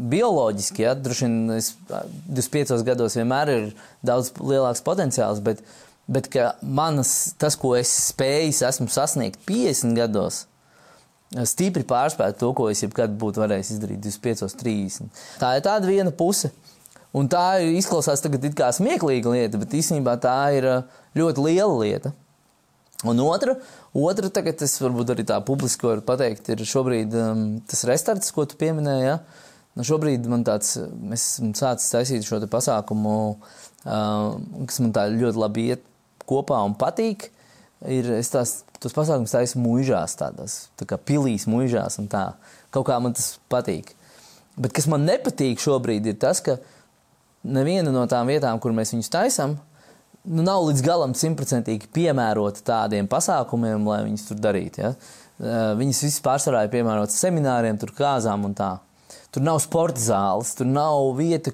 bioloģiski, ja, droši vien 25 gados vienmēr ir daudz lielāks potenciāls, bet ka tas, ko es esmu sasniegt 50 gados, stipri pārspēt to, ko es jebkad būtu varējis izdarīt 25, 30. Tā ir tāda viena puse. Un tā izklausās tagad it kā smieklīga lieta, bet īstenībā tā ir ļoti liela lieta. Un otra tagad es varbūt arī tā publiski varu pateikt, ir šobrīd tas restarts, ko tu pieminēji, ja? Šobrīd man mēs esam sācis taisīt šo te pasākumu, kas man tā ļoti labi iet kopā un patīk. Tos pasākums taisu muižās tādās, tā kā pilīs muižās un tā. Kaut kā man tas patīk. Bet kas man nepatīk šobrīd ir tas, ka neviena no tām vietām, kur mēs viņus taisam, nav līdz galam 100% piemērota tādiem pasākumiem, lai viņus tur darītu. Ja? Viņas visas pārsvarā ir piemērotas semināriem, tur kāzām un tā. Tur nav sporta zāles, tur nav vieta,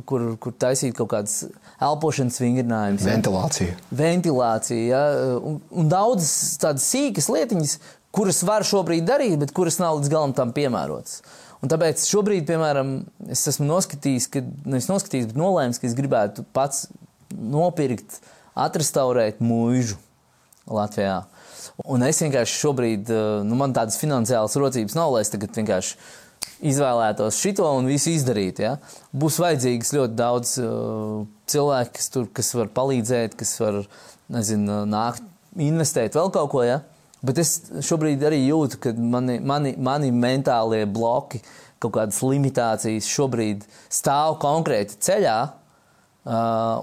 kur taisīt kaut kādas elpošanas vingrinājumus. Ventilācija, ja? Un daudzas tādas sīkas lietiņas, kuras var šobrīd darīt, bet kuras nav līdz galam tam piemērotas. Un tāpēc šobrīd, piemēram, es esmu bet nolēmis, ka es gribētu pats nopirkt, atrestaurēt muižu Latvijā. Un es vienkārši šobrīd, man tādas finansiālas rocības nav, lai es tagad vienkārši izvēlētos šito un visu izdarīt. Ja? Būs vajadzīgs ļoti daudz cilvēku, kas var palīdzēt, kas var, nākt, investēt vēl kaut ko, ja? Bet es šobrīd arī jūtu, ka mani mentālie bloki, kaut kādas limitācijas šobrīd stāv konkrēti ceļā,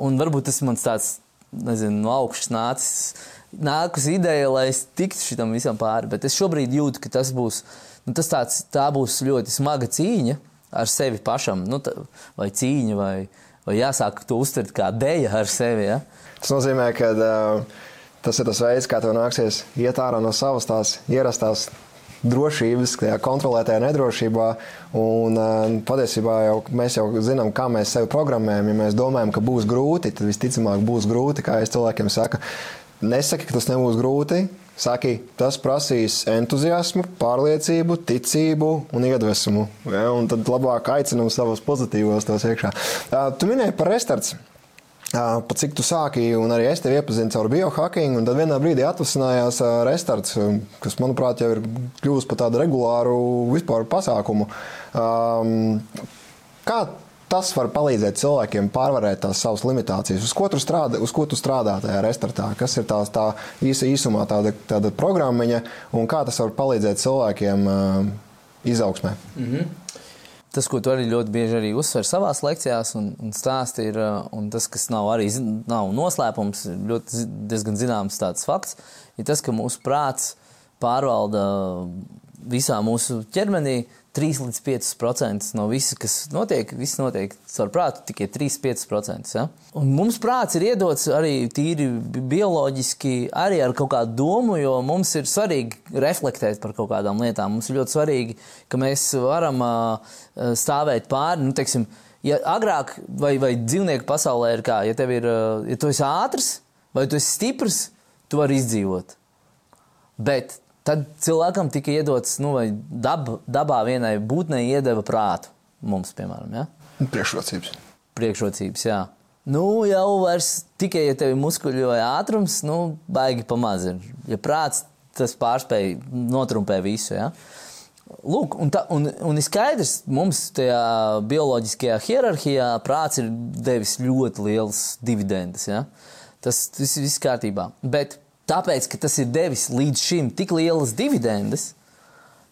un varbūt tas mans tāds, no augšas nākus ideja, lai es tiktu šitam visam pāri, bet es šobrīd jūtu, ka tas būs, tā būs ļoti smaga cīņa ar sevi pašam, vai cīņa, vai jāsāk to uztvert kā deja ar sevi, ja? Tas nozīmē, ka tas ir tas veids, kā tev nāksies iet ārā no savas tās ierastās drošības, tajā kontrolētajā nedrošībā. Un patiesībā mēs jau zinām, kā mēs sevi programmējam. Ja mēs domājam, ka būs grūti, tad visticamāk būs grūti. Kā es cilvēkiem saku, nesaki, ka tas nebūs grūti. Saki, tas prasīs entuziasmu, pārliecību, ticību un iedvesmu. Ja? Un tad labāk aicinam savus pozitīvos tos iekšā. Tu minēji par restarts. Pat cik tu sāki, un arī es tevi iepazinu caur biohackingu, un tad vienā brīdī atvasinājās restarts, kas, manuprāt, jau ir kļuvis par tādu regulāru vispār pasākumu. Kā tas var palīdzēt cilvēkiem pārvarēt tās savas limitācijas? Uz ko tu strādā tajā restartā? Kas ir tā īsumā tāda programmiņa, un kā tas var palīdzēt cilvēkiem izaugsmē? Mm-hmm. Tas, ko tu arī ļoti bieži arī uzsver savās lekcijās un stāsti ir, un tas, kas nav noslēpums, ļoti diezgan zināms tāds fakts, ir tas, ka mūsu prāts pārvalda visā mūsu ķermenī 3–5% no visa, kas notiek, viss notiek caur prātu, tikai 3–5%. Ja? Un mums prāts ir iedots arī tīri bioloģiski, arī ar kaut kādu domu, jo mums ir svarīgi reflektēt par kaut kādām lietām. Mums ir ļoti svarīgi, ka mēs varam stāvēt pāri, teiksim, ja agrāk vai dzīvnieku pasaulē ir kā, ja tu esi ātrs vai tu esi stiprs, tu vari izdzīvot. Bet tad cilvēkam tika iedots, vai dabā vienai būtnei iedeva prātu mums, piemēram, ja? Priekšrocības, jā. Jau vairs tikai, ja tev ir muskuļi vai ātrums, baigi pamaz ir. Ja prāts, tas pārspēj, notrumpē visu, ja? Lūk, un ir skaidrs, mums tajā bioloģiskajā hierarhijā prāts ir devis ļoti liels dividendes, ja? Tas viss kārtībā. Bet tāpēc, ka tas ir devis līdz šim tik lielas dividendes,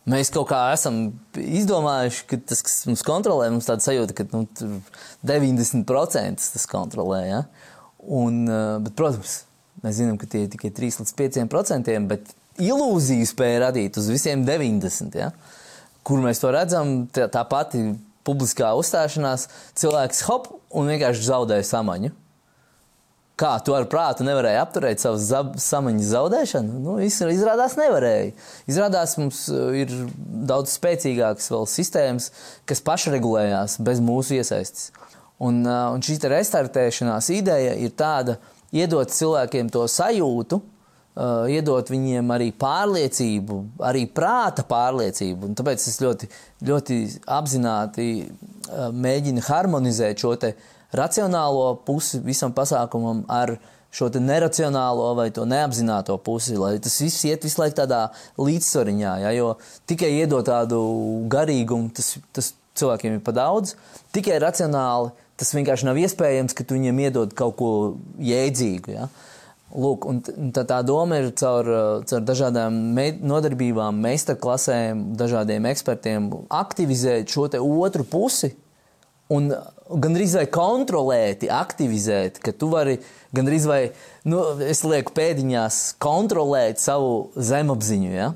mēs kaut kā esam izdomājuši, ka tas, kas mums kontrolē, mums tāda sajūta, ka 90% tas kontrolē. Ja? Bet, protams, mēs zinām, ka tie ir tikai 3–5%, bet ilūziju spēja radīt uz visiem 90, ja? Kur mēs to redzam, tā pati publiskā uzstāšanās, cilvēks hop un vienkārši zaudēja samaņu. Kā, tu ar prātu nevarēji apturēt savas samaņas zaudēšanu? Nu, izrādās nevarēja. Izrādās mums ir daudz spēcīgākas vēl sistēmas, kas pašregulējās bez mūsu iesaistes. Un šī restartēšanās ideja ir tāda, iedot cilvēkiem to sajūtu, iedot viņiem arī pārliecību, arī prāta pārliecību. Un tāpēc es ļoti, ļoti apzināti mēģinu harmonizēt šo te racionālo pusi visam pasākumam ar šo te neracionālo vai to neapzināto pusi, lai tas viss iet visu laiku tādā līdzsvariņā, ja? Jo tikai iedot tādu garīgumu, tas cilvēkiem ir pa daudz, tikai racionāli tas vienkārši nav iespējams, ka tu viņiem iedod kaut ko jēdzīgu, ja? Lūk, un tā doma ir caur dažādām nodarbībām, meistarklasēm, dažādiem ekspertiem aktivizēt šo te otru pusi un gandrīz vai kontrolēti aktivizēt, ka tu vari gandrīz vai, es lieku pēdiņās, kontrolēt savu zemapziņu, ja?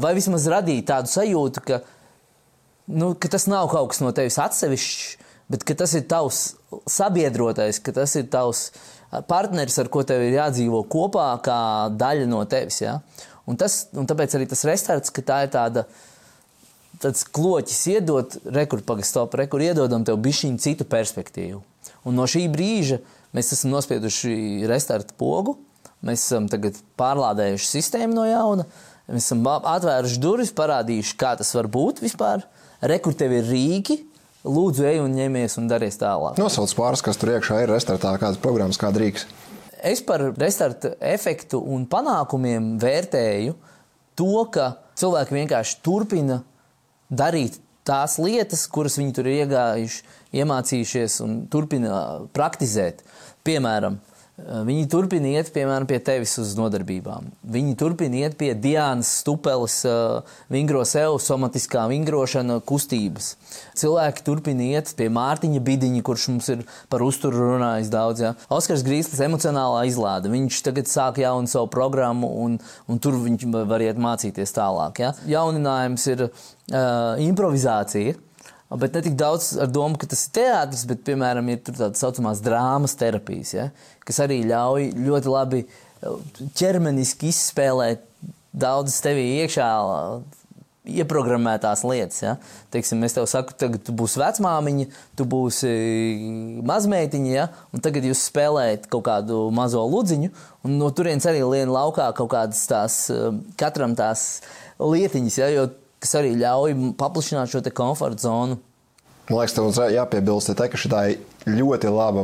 Vai vismaz radīt tādu sajūtu, ka tas nav kaut kas no tevis atsevišķs, bet ka tas ir tavs sabiedrotais, ka tas ir tavs partneris, ar ko tev ir jādzīvo kopā kā daļa no tevis, ja? Un tāpēc arī tas restarts, ka tā ir tāds kloķis iedot, rekur iedodam tev bišķiņu citu perspektīvu. Un no šī brīža mēs esam nospieduši restarta pogu, mēs esam tagad pārlādējuši sistēmu no jauna, mēs esam atvēruši durvis, parādījuši, kā tas var būt vispār, rekur tev ir rīki, lūdzu, ej un ņemies un daries tālāk. Nosauc pāris, kas tur iekšā ir restartā, kādas programmas, kāda rīks. Es par restarta efektu un panākumiem vērtēju to, ka cilvēki vienkārši turpina darīt tās lietas, kuras viņi tur ir iegājuši, iemācījušies un turpina praktizēt. Piemēram, viņi turpina iet, piemēram, pie tevis uz nodarbībām. Viņi turpina iet pie Diānas Stupeles vingro sev somatiskā vingrošana kustības. Cilvēki turpina iet pie Mārtiņa Bidiņa, kurš mums ir par uzturu runājis daudz. Ja? Oskars Grīslis emocionālā izlāde. Viņš tagad sāk jaunu savu programmu un tur viņš var iet mācīties tālāk. Ja? Jauninājums ir improvizācija. Bet ne tik daudz ar domu, ka tas ir teātris, bet, piemēram, ir tur tādas saucamās drāmas terapijas, ja? Kas arī ļauj ļoti labi ķermeniski izspēlēt daudzas tevī iekšā ieprogrammētās lietas. Ja? Teiksim, es tev saku, tagad tu būsi vecmāmiņa, tu būsi mazmeitiņa, ja? Un tagad jūs spēlējat kaut kādu mazo ludziņu, un no turienes arī lien laukā kaut kādas tās, katram tās lietiņas, ja? Jo kas arī ļauj paplašināt šo te komforta zonu. Man liekas, tev jāpiebilst te, ka šitā ļoti laba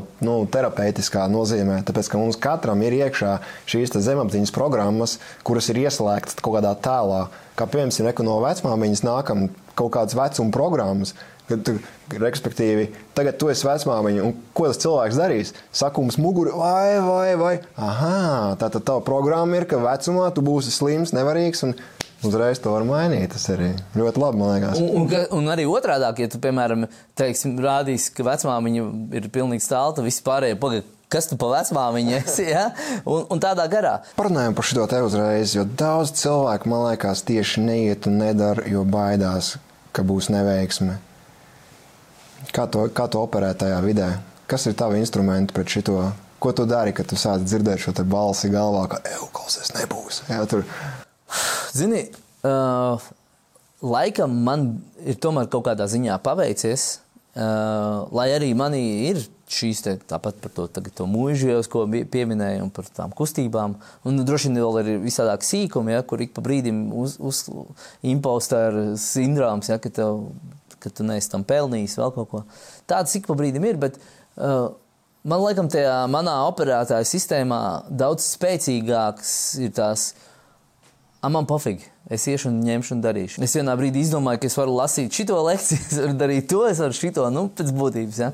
terapeitiskā nozīmē, tāpēc, ka mums katram ir iekšā šīs te zemapziņas programmas, kuras ir ieslēgtas kaut kādā tēlā. Kā piemēram, no vecmāmiņas nākam kaut kādas vecuma programmas, kad tu, respektīvi, tagad tu esi vecmāmiņa, un ko tas cilvēks darīs? Sakums muguri, vai. Aha, tātad tava programma ir, ka vecumā tu būsi slims, nevarīgs, un uzreiz to var mainīt. Tas arī ļoti labi, man liekas. Un arī otrādāk, ja tu, piemēram, teiksim, rādīs, ka vecmāmiņa ir pilnīgi stālta, visi pārējie, kas tu pa vecmāmiņa esi, ja? Un tādā garā. Parunājam par šito te uzreiz, jo daudz cilvēku, man liekas, tieši neiet un nedara, jo baidās, ka būs neveiksme. Kā tu operē tajā vidē? Kas ir tavi instrumenti pret šito? Ko tu dari, kad tu sāc dzirdēt šo te balsi galvā, ka klausies nebūs? Jā, tur... Zini, laikam man ir tomēr kaut kādā ziņā paveicies, lai arī manī ir šīs te, tāpat par to mūžījos, ko pieminēju, un par tām kustībām. Un droši vien vēl ir visādāk sīkumi, ja, kur ik pa brīdim uz imposter sindroms, ja, ka tu neesi tam pelnījis vēl kaut ko. Tāds ik pa brīdim ir, bet man laikam tajā manā operētāja sistēmā daudz spēcīgāks ir tās man pofīgi. Es iešu un ņemšu un darīšu. Es vienā brīdī izdomāju, ka es varu lasīt šito lekciju, es varu darīt to, es varu šito, pēc būtības, ja.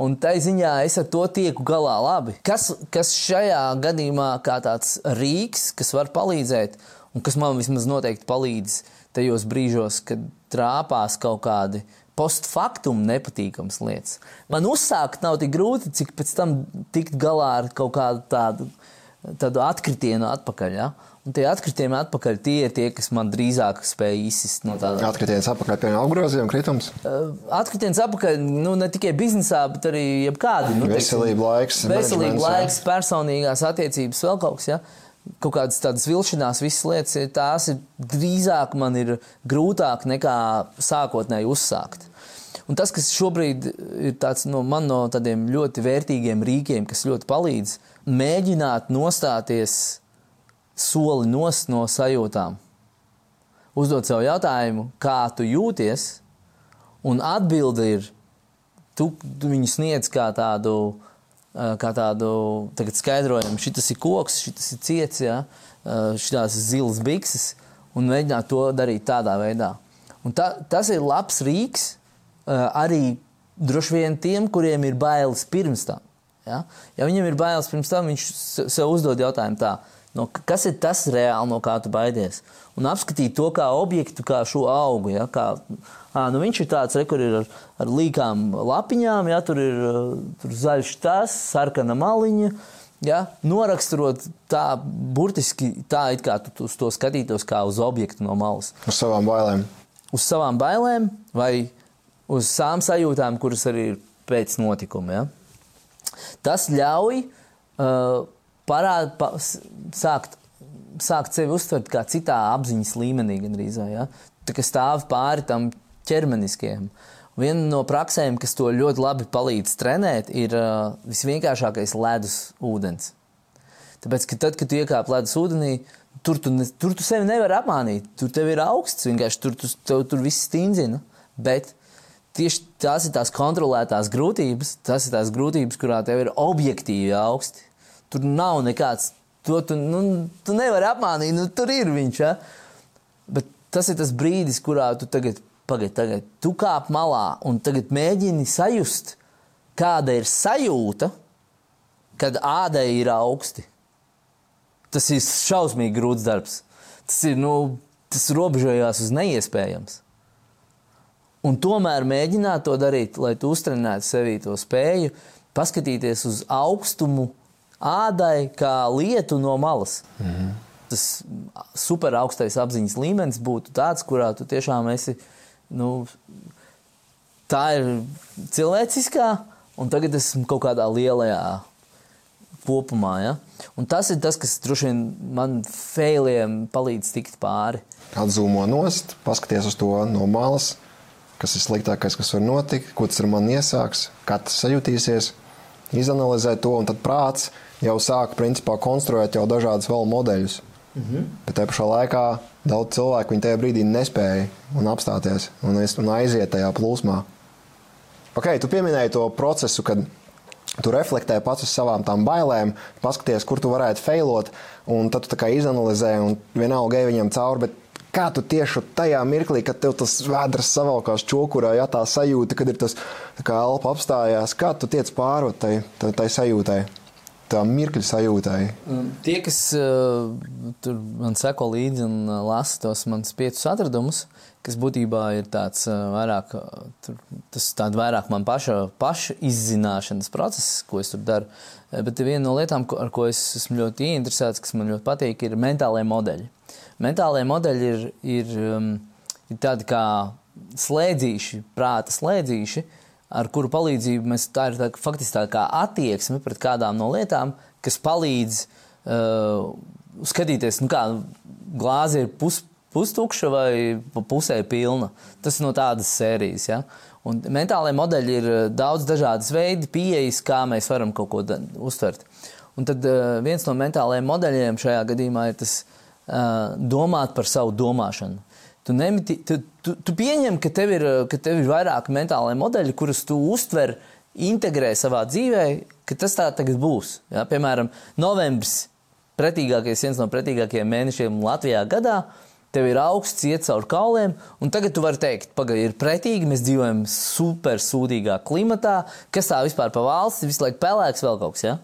Un tai ziņā es ar to tieku galā labi. Kas šajā gadījumā kā tāds rīks, kas var palīdzēt, un kas man vismaz noteikti palīdz tajos brīžos, kad trāpās kaut kādi postfaktum nepatīkams lietas. Man uzsākt nav tik grūti, cik pēc tam tikt galā ar kaut kādu tādu tādu atkritienu atpakaļ, ja? Un tie atkritieni atpakaļ tie, kas man drīzāk spēja izsist no tāda. Atkritiens atpakaļ, piemēram, apgrozījuma kritums? Atkritiens atpakaļ, ne tikai biznesā, bet arī jebkādi. Veselība, laiks, personīgās attiecības, vēl kaut kas, ja? Kaut kādas tādas vilšanās, visas lietas, tās ir drīzāk man ir grūtāk nekā sākotnēji uzsākt. Un tas, kas šobrīd ir tāds man no tādiem ļoti vērtīgiem rīkiem, kas ļoti palīdz, mēģināt nostāties soli nost no sajūtām. Uzdot sev jautājumu, kā tu jūties, un atbilde ir, tu viņu sniedz kā tādu tagad skaidrojumu, šitas ir koks, šitas ir ciets, ja? Šitās zilas bikses, un mēģināt to darīt tādā veidā. Un tas ir labs rīks arī droši vien tiem, kuriem ir bailes pirms tam. Ja? Ja viņam ir bailes pirms tam, viņš sev uzdod jautājumu tā, kas ir tas reāli, no kā tu baidies? Un apskatīt to kā objektu, kā šo augu. Ja? Viņš ir tāds, kur ir ar līkām lapiņām, ja? Tur ir zaļš tas, sarkana maliņa. Ja? Noraksturot tā, burtiski tā, it kā tu uz to skatītos kā uz objektu no malas. Uz savām bailēm. Uz savām bailēm vai uz savām sajūtām, kuras arī ir pēc notikuma. Ja? Tas ļauj sākt sevi uztvert kā citā apziņas līmenī gandrīz, ja? Tā kā stāv pāri tam ķermeniskajam. Viena no praksēm, kas to ļoti labi palīdz trenēt, ir visvienkāršākais ledus ūdens. Tāpēc, ka tad, kad tu iekāp ledus ūdenī, tur tu sevi nevar apmānīt. Tur tev ir augsts, vienkārši tur viss stindzina. Bet tieši tās ir tās kontrolētās grūtības, kurā tev ir objektīvi augsti. Tur nav nekāds, tu nevari apmānīt, tur ir viņš, ja? Bet tas ir tas brīdis, kurā tu tagad tu kāp malā un tagad mēģini sajust, kāda ir sajūta, kad ādai ir augsti. Tas ir šausmīgi grūts darbs. Tas robežojās uz neiespējams. Un tomēr mēģināt to darīt, lai tu uztrenētu sevī to spēju, paskatīties uz augstumu ādai kā lietu no malas. Mm-hmm. Tas super augstais apziņas līmenis būtu tāds, kurā tu tiešām esi, tā ir cilvēciskā, un tagad esmu kaut kādā lielajā kopumā, ja? Un tas ir tas, kas droši vien man feiliem palīdz tikt pāri. Atzūmo nost, paskaties uz to no malas, kas ir sliktākais, kas var notikt, ko tas ar mani iesāks, kā tas sajutīsies, izanalizē to, un tad prāts jau sāk, principā, konstruēt jau dažādas vēl modeļus. Mm-hmm. Bet te pašā laikā daudz cilvēku viņi tajā brīdī nespēja un apstāties un aiziet tajā plūsmā. Ok, tu pieminēji to procesu, kad tu reflektē pats uz savām tām bailēm, paskaties, kur tu varētu feilot, un tad tu tā kā izanalizē un vienalga viņam cauri, bet kā tu tieši tajā mirklī, kad tev tas vēdras savalkās čokurā, ja tā sajūta, kad ir tas kā elpa apstājās, kā tu tiec pārot tai sajūtai, tā mirkļa sajūtai? Tie, kas tur man seko līdzi un lasa tos manas 5 atradumus, kas būtībā ir tāds vairāk, tas tāda vairāk man paša izzināšanas process, ko es tur daru. Bet viena no lietām, ar ko es esmu ļoti ieinteresēts, kas man ļoti patīk, ir mentālie modeļi. Mentālie modeļi ir tādi kā slēdzīši, prāta slēdzīši, ar kuru palīdzību tā ir faktiski tā kā attieksme pret kādām no lietām, kas palīdz skatīties, kā glāze ir pustukša vai pa pusē pilna. Tas ir no tādas sērijas, ja? Un mentālie modeļi ir daudz dažādas veidi, pieejas, kā mēs varam kaut ko uztvert. Un tad viens no mentālajiem modeļiem šajā gadījumā ir tas domāt par savu domāšanu. Tu pieņem, ka tev ir vairāk mentālai modeļi, kurus tu uztver, integrē savā dzīvē, ka tas tā tagad būs. Ja? Piemēram, novembris viens no pretīgākajiem mēnešiem Latvijā gadā, tev ir augsts, iet caur kauliem, un tagad tu vari teikt, ir pretīgi, mēs dzīvojam super sūdīgā klimatā, kas tā vispār pa valsti, visu laiku pelēks vēl kaut kas, ja?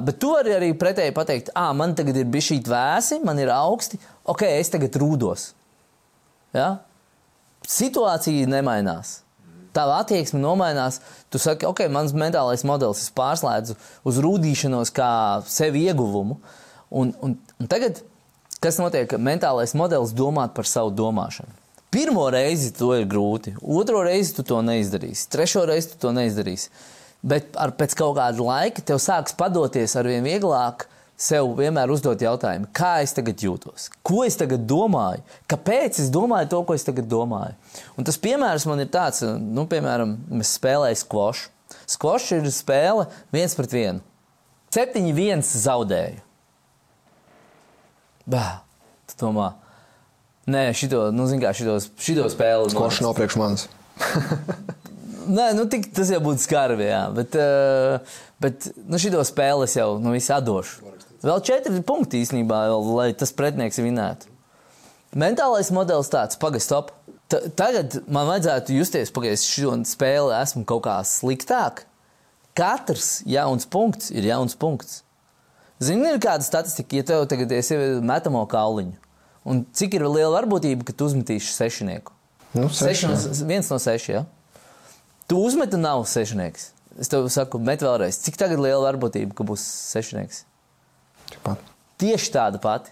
Bet tu vari arī pretēji pateikt, man tagad ir bišķīt vēsi, man ir augsti, ok, es tagad rūdos. Ja? Situācija nemainās. tava attieksme nomainās. Tu saki, ok, mans mentālais modelis, es pārslēdzu uz rūdīšanos kā sevi ieguvumu. Un tagad, kas notiek, mentālais modelis domāt par savu domāšanu. Pirmo reizi to ir grūti, otro reizi tu to neizdarīsi, trešo reizi tu to neizdarīsi. Bet pēc kaut kāda laika tev sāks padoties arvien vieglāk sev vienmēr uzdot jautājumu, kā es tagad jūtos, ko es tagad domāju, kāpēc es domāju to, ko es tagad domāju. Un tas piemērs man ir tāds, piemēram, mēs spēlējam skvošu. Skvoša ir spēle 1-1. 7-1 zaudēju. Tu domā, nē, šito spēli... Skvoša nav priekš manis. Nē, tas jau būtu skarbi, jā. Bet šito spēli es jau visu atdošu. Vēl 4 punkti īstenībā, lai tas pretinieks vinētu. Mentālais modelis tāds, stop. Tagad man vajadzētu justies, es šo spēli esmu kaut kā sliktāk. Katrs jauns punkts ir jauns punkts. Zini, ir kāda statistika, ja tev tagad esi metamo kauliņu. Un cik ir liela varbūtība, ka tu uzmetīši sešnieku? 1 no 6, jā. Tu uzmeti nav sešnieks. Es tev saku, met vēlreiz. Cik tagad liela varbūtība, ka būs sešnieks? Tieši tāda pati.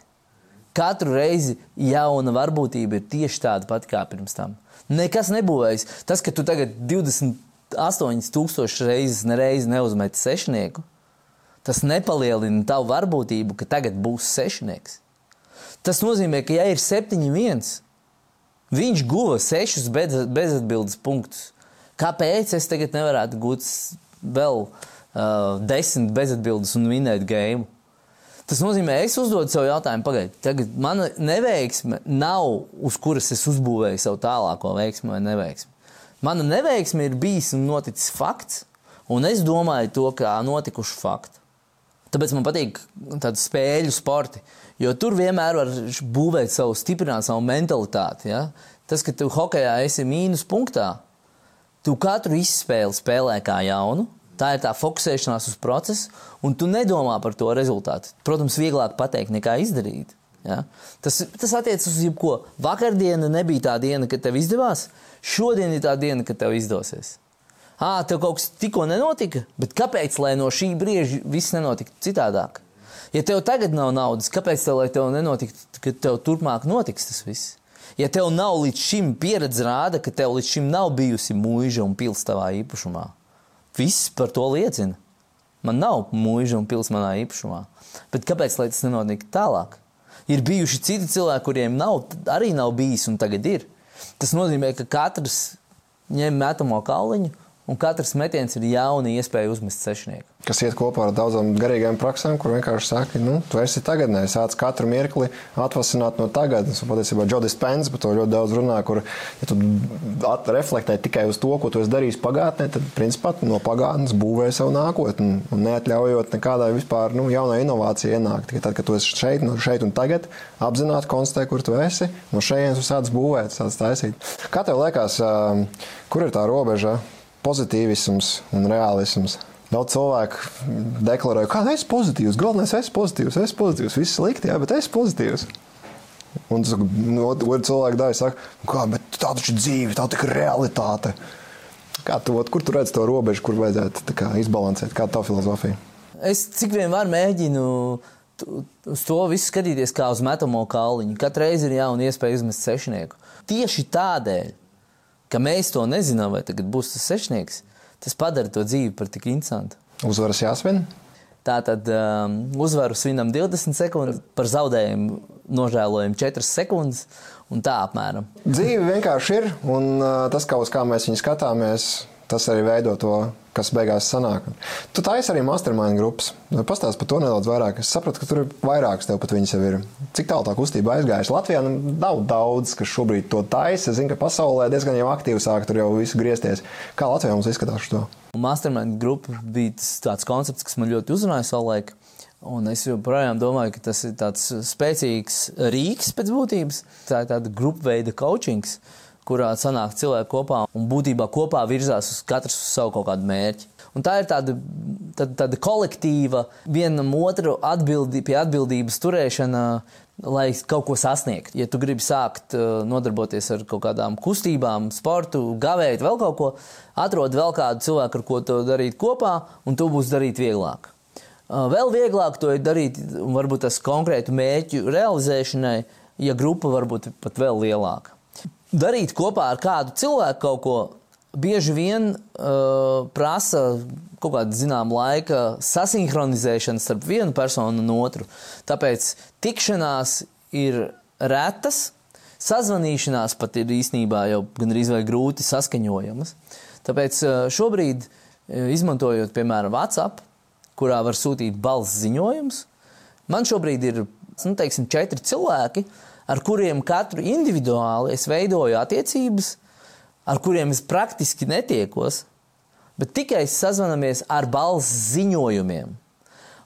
Katru reizi jauna varbūtība ir tieši tāda pati kā pirms tam. Nekas nebūvējas. Tas, ka tu tagad 28,000 reizes neuzmeti sešnieku, tas nepalielina tavu varbūtību, ka tagad būs sešnieks. Tas nozīmē, ka ja ir 7-1, viņš guva 6 bezatbildes punktus. Kāpēc es tagad nevarētu gūt vēl 10 bezatbildes un vinēt gēmu? Tas nozīmē, es uzdodu sev jautājumu, pagaidi, tagad mana neveiksme nav, uz kuras es uzbūvēju savu tālāko veiksmi vai neveiksmi. Mana neveiksme ir bijis un noticis fakts, un es domāju to kā notikušu faktu. Tāpēc man patīk tādi spēļu sporti, jo tur vienmēr var būvēt savu, stiprināt savu mentalitāti. Ja? Tas, ka tu hokejā esi mīnus punktā, tu katru izspēli spēlē kā jaunu, tā ir tā fokusēšanās uz procesu, un tu nedomā par to rezultātu. Protams, vieglāk pateikt nekā izdarīt. Ja? Tas attiecas uz jebko. Vakardiena nebija tā diena, kad tev izdevās, šodien ir tā diena, kad tev izdosies. Tev kaut kas tikko nenotika, bet kāpēc, lai no šī brieža viss nenotika citādāk? Ja tev tagad nav naudas, kāpēc tev, lai tev nenotiktu, ka tev turpmāk notiks tas viss? Ja tev nav līdz šim pieredze rāda, ka tev līdz šim nav bijusi mūža un pils tavā īpašumā, viss par to liecina. Man nav mūža un pils manā īpašumā. Bet kāpēc, lai tas nenotika tālāk? Ir bijuši citi cilvēki, kuriem arī nav bijis un tagad ir. Tas nozīmē, ka katrs ņem metamo kauliņu, un katrs metiens ir jauna iespēja uzmest sešnieku. Kas iet kopā ar daudzām garīgām praksēm, kur vienkārši saka, tu esi tagadnē, sāc katru mirkli atvasināt no tagadnes. Un patiesībā Joe Dispenza par to ļoti daudz runā, kur, ja tu reflektē tikai uz to, ko tu esi darījis pagātnē, tad, principā, no pagātnes būvē savu nākotni un neatļaujot nekādai vispār jaunai inovācijai ienākt. Tikai tad, kad tu esi šeit un tagad, apzināti konstatē, kur tu esi, no šejienes tu sāc būvēt, sāc taisīt. Kā tev liekas, kur ir tā robeža? Pozitīvisms un reālisms. Daudz cilvēku deklarēja, kā es pozitīvs, galvenais es pozitīvs, viss slikti, jā, bet es pozitīvs. Un otru cilvēku daļa saka, bet tā taču dzīve, tā tik realitāte. Kur tu redz to robežu, kur vajadzētu izbalansēt? Kāda tā filozofija? Es cik vien var mēģinu uz to visu skatīties kā uz metamo kauliņu. Katru reizi ir jauna iespēja uzmest sešnieku. Tieši tādēļ, ka mēs to nezinām, vai tagad būs tas sešnieks, tas padara to dzīvi par tik interesantu. Uzvaras jāsvin? Tātad uzvaru svinam 20 sekundes, par zaudējumu nožēlojam 4 sekundes un tā apmēram. Dzīve vienkārši ir, un tas, uz kā mēs viņu skatāmies, tas arī veido to, kas beigās sanāk. Tu taisi arī mastermind grupas. Pastāsti par to nedaudz vairāk. Es sapratu, ka tur ir vairākas, tev pat viņas jau ir. Cik tālu tā kustība aizgājusi? Latvijā nav daudz, kas šobrīd to taisa. Es zinu, ka pasaulē diezgan jau aktīvi sāk tur jau visu griezties. Kā Latvijā mums izskatās šo? Mastermind grupa bija tāds koncepts, kas man ļoti uzrunāja savulaik. Un es joprojām domāju, ka tas ir tāds spēcīgs rīks pēc būtības. Tā ir tāda grupveida coachings, kurā sanāk cilvēki kopā un būtībā kopā virzās katrs uz savu kaut kādu mērķi. Un tā ir tāda kolektīva vienam otru pie atbildības turēšana, lai kaut ko sasniegt. Ja tu gribi sākt nodarboties ar kaut kādām kustībām, sportu, gavēt, vēl kaut ko, atrod vēl kādu cilvēku, ar ko to darīt kopā, un tu būs darīt vieglāk. Vēl vieglāk to ir darīt, varbūt tas konkrētu mērķu realizēšanai, ja grupa varbūt pat vēl lielāka. Darīt kopā ar kādu cilvēku kaut ko bieži vien prasa kaut kādu zinām laika sasinhronizēšanu starp vienu personu un otru. Tāpēc tikšanās ir retas, sazvanīšanās pat ir īstenībā jau gandrīz vai grūti saskaņojamas. Tāpēc šobrīd, izmantojot, piemēram, WhatsApp, kurā var sūtīt balss ziņojumus, man šobrīd ir, 4 cilvēki, ar kuriem katru individuāli es veidoju attiecības, ar kuriem es praktiski netiekos, bet tikai sazvanamies ar balss ziņojumiem.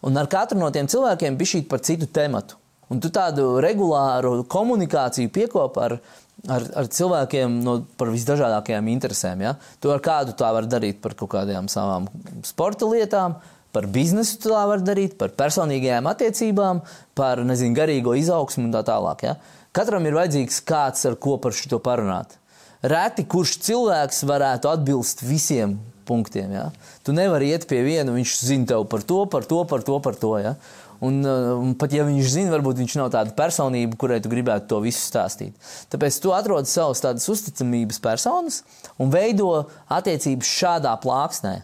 Un ar katru no tiem cilvēkiem bišķīt par citu tematu. Un tu tādu regulāru komunikāciju piekopi ar cilvēkiem par visdažādākajām interesēm. Ja? Tu ar kādu tā var darīt par kaut kādām savām sporta lietām, par biznesu tā var darīt, par personīgajām attiecībām, par, garīgo izaugsmu un tā tālāk. Ja? Katram ir vajadzīgs kāds, ar ko par šito parunāt. Reti, kurš cilvēks varētu atbilst visiem punktiem. Ja? Tu nevari iet pie vienu, viņš zina tev par to. Ja? Un pat ja viņš zina, varbūt viņš nav tāda personība, kurai tu gribētu to visu stāstīt. Tāpēc tu atrodi savas tādas uzticamības personas un veido attiecības šādā plāksnē.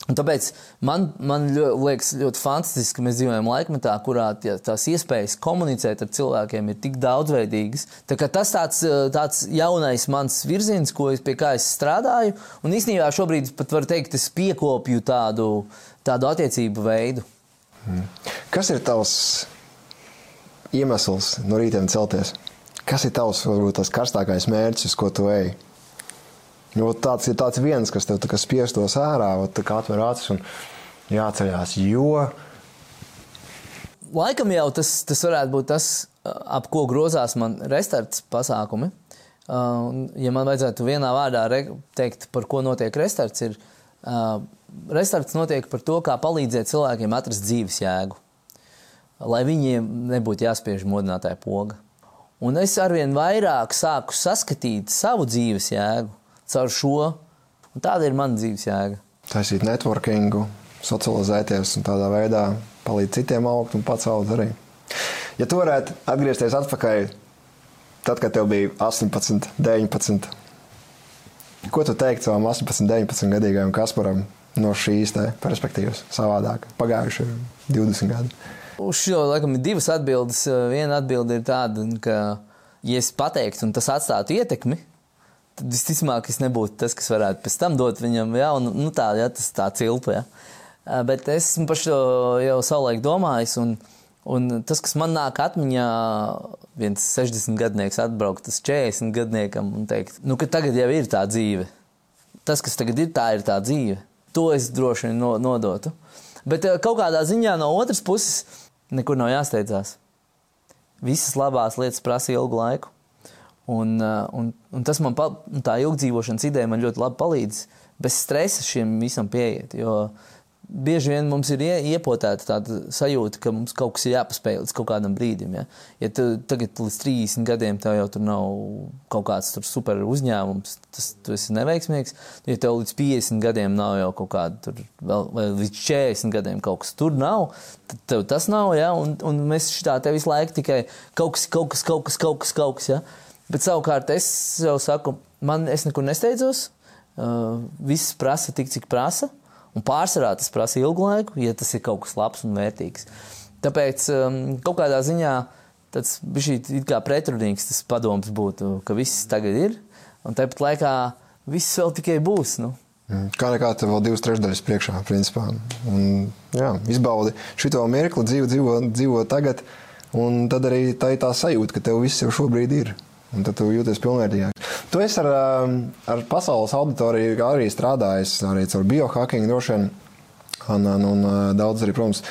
Un tāpēc man liekas ļoti fantastiski, ka mēs dzīvojam laikmetā, kurā tās iespējas komunicēt ar cilvēkiem ir tik daudzveidīgas. Tā kā tas tāds jaunais mans virziens, pie kā es strādāju, un īstenībā šobrīd pat var teikt, es piekopju tādu attiecību veidu. Kas ir tavs iemesls no rītiem celties? Kas ir tavs, varbūt, tas karstākais mērķis, uz ko tu ej? Jo tāds ir tāds viens, kas tev spiestos ārā, tā kā atver acis un jāceļās, jo... Laikam jau tas varētu būt tas, ap ko grozās man restarts pasākumi. Ja man vajadzētu vienā vārdā teikt, par ko notiek restarts, restarts notiek par to, kā palīdzēt cilvēkiem atrast dzīves jēgu, lai viņiem nebūtu jāspiež modinātāja poga. Un es arvien vairāk sāku saskatīt savu dzīves jēgu caur šo, un tāda ir mana dzīves jēga. Taisīt networkingu, socializēties un tādā veidā palīdz citiem augt un pacelt arī. Ja tu varētu atgriezties atpakaļ, tad, kad tev bija 18, 19, ko tu teiktu savam 18, 19 gadīgajam Kasparam no šīs perspektīvas savādāk? Pagājuši 20 gadi. Uz šo, laikam, ir divas atbildes. Viena atbilde ir tāda, ka, ja es pateiktu un tas atstātu ietekmi, tad visticamāk es nebūtu tas, kas varētu pēc tam dot viņam, tas tā cilpa, ja. Bet es esmu par šo jau savulaik domājis, un tas, kas man nāk atmiņā, viens 60-gadnieks atbraukt tas 40-gadniekam un teikt, ka tagad jau ir tā dzīve. Tas, kas tagad ir tā dzīve. To es droši vien nodotu. Bet kaut kādā ziņā no otras puses nekur nav jāsteidzās. Visas labās lietas prasa ilgu laiku. Un tas man, tā ilgdzīvošanas ideja man ļoti labi palīdz bez stresa šiem visam pieiet, jo bieži vien mums ir iepotēta tāda sajūta, ka mums kaut kas ir jāpaspēj līdz kaut kādam brīdim. Ja, ja tu tagad līdz 30 gadiem tev jau tur nav kaut kāds tur super uzņēmums, tu esi neveiksmīgs, ja tev līdz 50 gadiem nav jau kaut kāda tur, vai līdz 40 gadiem kaut kas tur nav, tad tev tas nav, ja, un mēs šitā te visu laiku tikai kaut kas, ja. Bet savukārt es jau saku, es nekur nesteidzos, viss prasa tik, cik prasa, un pārsvarā tas prasa ilgu laiku, ja tas ir kaut kas labs un vērtīgs. Tāpēc kaut kādā ziņā tāds bišķīt it kā pretrunīgs tas padoms būtu, ka viss tagad ir, un tāpat laikā viss vēl tikai būs. Kā nekā tev vēl 2/3 priekšā, principā. Un, jā, izbaudi šito mirkli, dzīvo tagad, un tad arī tā sajūta, ka tev viss jau šobrīd ir. Un tad tu jūties pilnvērtīgāk. Tu esi ar pasaules auditoriju arī strādājis, arī caur biohacking droši vien, un daudz arī, protams,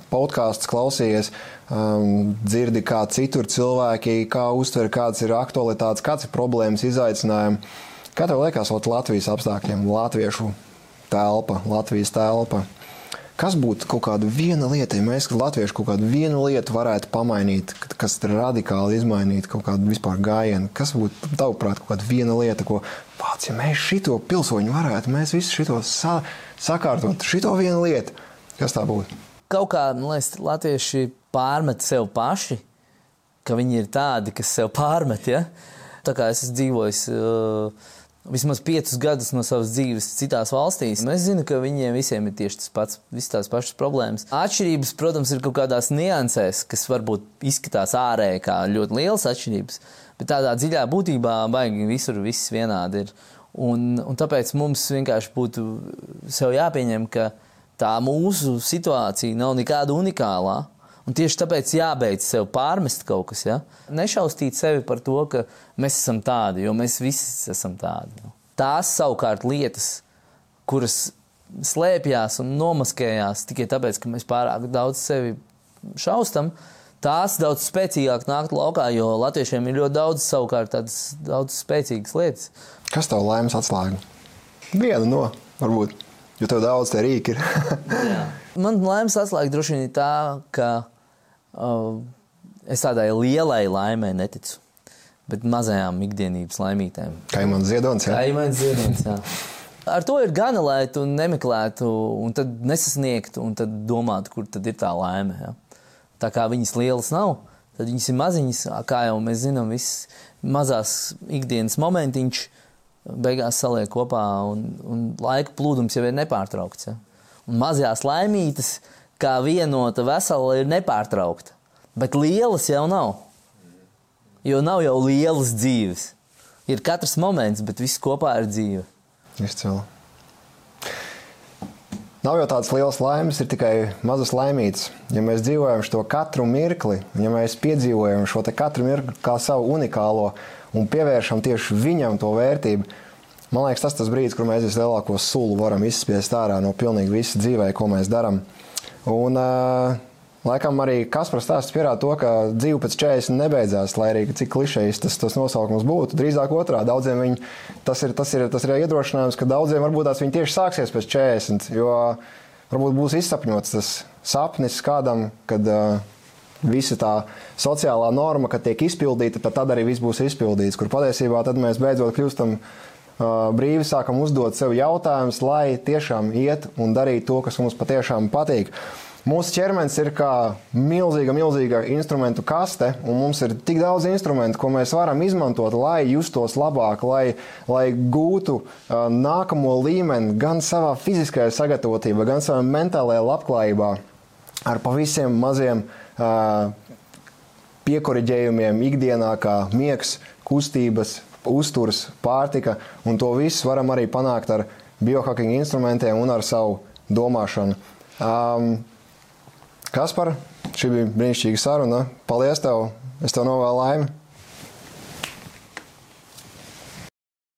podcasts klausījies, dzirdi, kā citur cilvēki, kā uztver, kāds ir aktualitātes, kāds ir problēmas, izaicinājumi. Kā tev liekas, Latvijas apstākļiem, latviešu telpa, Latvijas telpa? Kas būtu kaut kāda viena lieta, ja mēs latvieši kaut kādu vienu lietu varētu pamainīt, kas radikāli izmainītu kaut kādu vispār gājienu? Kas būtu, tavuprāt, kaut kāda viena lieta, ko pats, ja mēs šito pilsoņu varētu, mēs visu šito sakārtot, šito vienu lietu, kas tā būtu? Kaut kā, man liekas, latvieši pārmet sev paši, ka viņi ir tādi, kas sev pārmet, ja? Tā kā es esmu dzīvojis vismaz 5 gadus no savas dzīves citās valstīs. Es zinu, ka viņiem visiem ir tieši tas pats, visas tās pašas problēmas. Atšķirības, protams, ir kaut kādās niansēs, kas varbūt izskatās ārēji kā ļoti lielas atšķirības, bet tādā dziļā būtībā baigi visur viss vienādi ir. Un tāpēc mums vienkārši būtu sev jāpieņem, ka tā mūsu situācija nav nekāda unikālā. Un tieši tāpēc jābeidz sev pārmest kaut kas, ja? Nešaustīt sevi par to, ka mēs esam tādi, jo mēs visi esam tādi. Tās savukārt lietas, kuras slēpjās un nomaskējās tikai tāpēc, ka mēs pārāk daudz sevi šaustam, tās daudz spēcīgāk nākt laukā, jo latviešiem ir ļoti daudz savukārt tādas daudz spēcīgas lietas. Kas tev laimes atslēga? Viena no, varbūt, jo tev daudz te rīki ir. Jā. Man laimes atslēga droši vien ir tā, ka es tādai lielai laimei neticu, bet mazajām ikdienības laimītēm. Kaimans Ziedonis, jā? Kaimans Ziedonis, jā. Ar to ir gana, lai tu nemeklētu un tad nesasniegtu un tad domātu, kur tad ir tā laime. Ja? Tā kā viņas lielas nav, tad viņas ir maziņas, kā jau mēs zinām, viss mazās ikdienas momentiņš beigās saliek kopā un laika plūdums jau ir nepārtraukts. Ja? Un mazajās laimītes, kā vienota vesela, ir nepārtraukta. Bet lielas jau nav. Jo nav jau lielas dzīves. Ir katrs moments, bet viss kopā ir dzīve. Izcili. Nav jau tādas lielas laimes, ir tikai mazas laimītes. Ja mēs dzīvojam šo katru mirkli, ja mēs piedzīvojam šo te katru mirkli kā savu unikālo un pievēršam tieši viņam to vērtību, man liekas, tas brīdis, kur mēs vislielāko sulu varam izspiest ārā no pilnīgi visa dzīvē, ko mēs daram. Un laikam arī Kaspara stāsts pierāda to, ka dzīve pēc 40 nebeidzās, lai arī cik klišejs tas nosaukums būtu. Drīzāk otrā. Daudziem tas ir iedrošinājums, ka daudziem varbūt tās viņi tieši sāksies pēc 40, jo varbūt būs izsapņots tas sapnis kādam, kad visa tā sociālā norma, kad tiek izpildīta, tad arī viss būs izpildīts, kur patiesībā tad mēs beidzot kļūstam brīvi, sākam uzdot sev jautājumus, lai tiešām iet un darīt to, kas mums patiešām patīk. Mūsu ķermenis ir kā milzīga instrumentu kaste, un mums ir tik daudz instrumentu, ko mēs varam izmantot, lai justos labāk, lai gūtu nākamo līmeni gan savā fiziskajā sagatavotībā, gan savā mentālajā labklājībā ar pavisam maziem piekoriģējumiem ikdienā, kā miegs, kustības, uzturs, pārtika, un to visu varam arī panākt ar biohacking instrumentiem un ar savu domāšanu. Kaspar, šī bija brīnišķīga saruna. Paldies tev! Es tev novēlu laimi!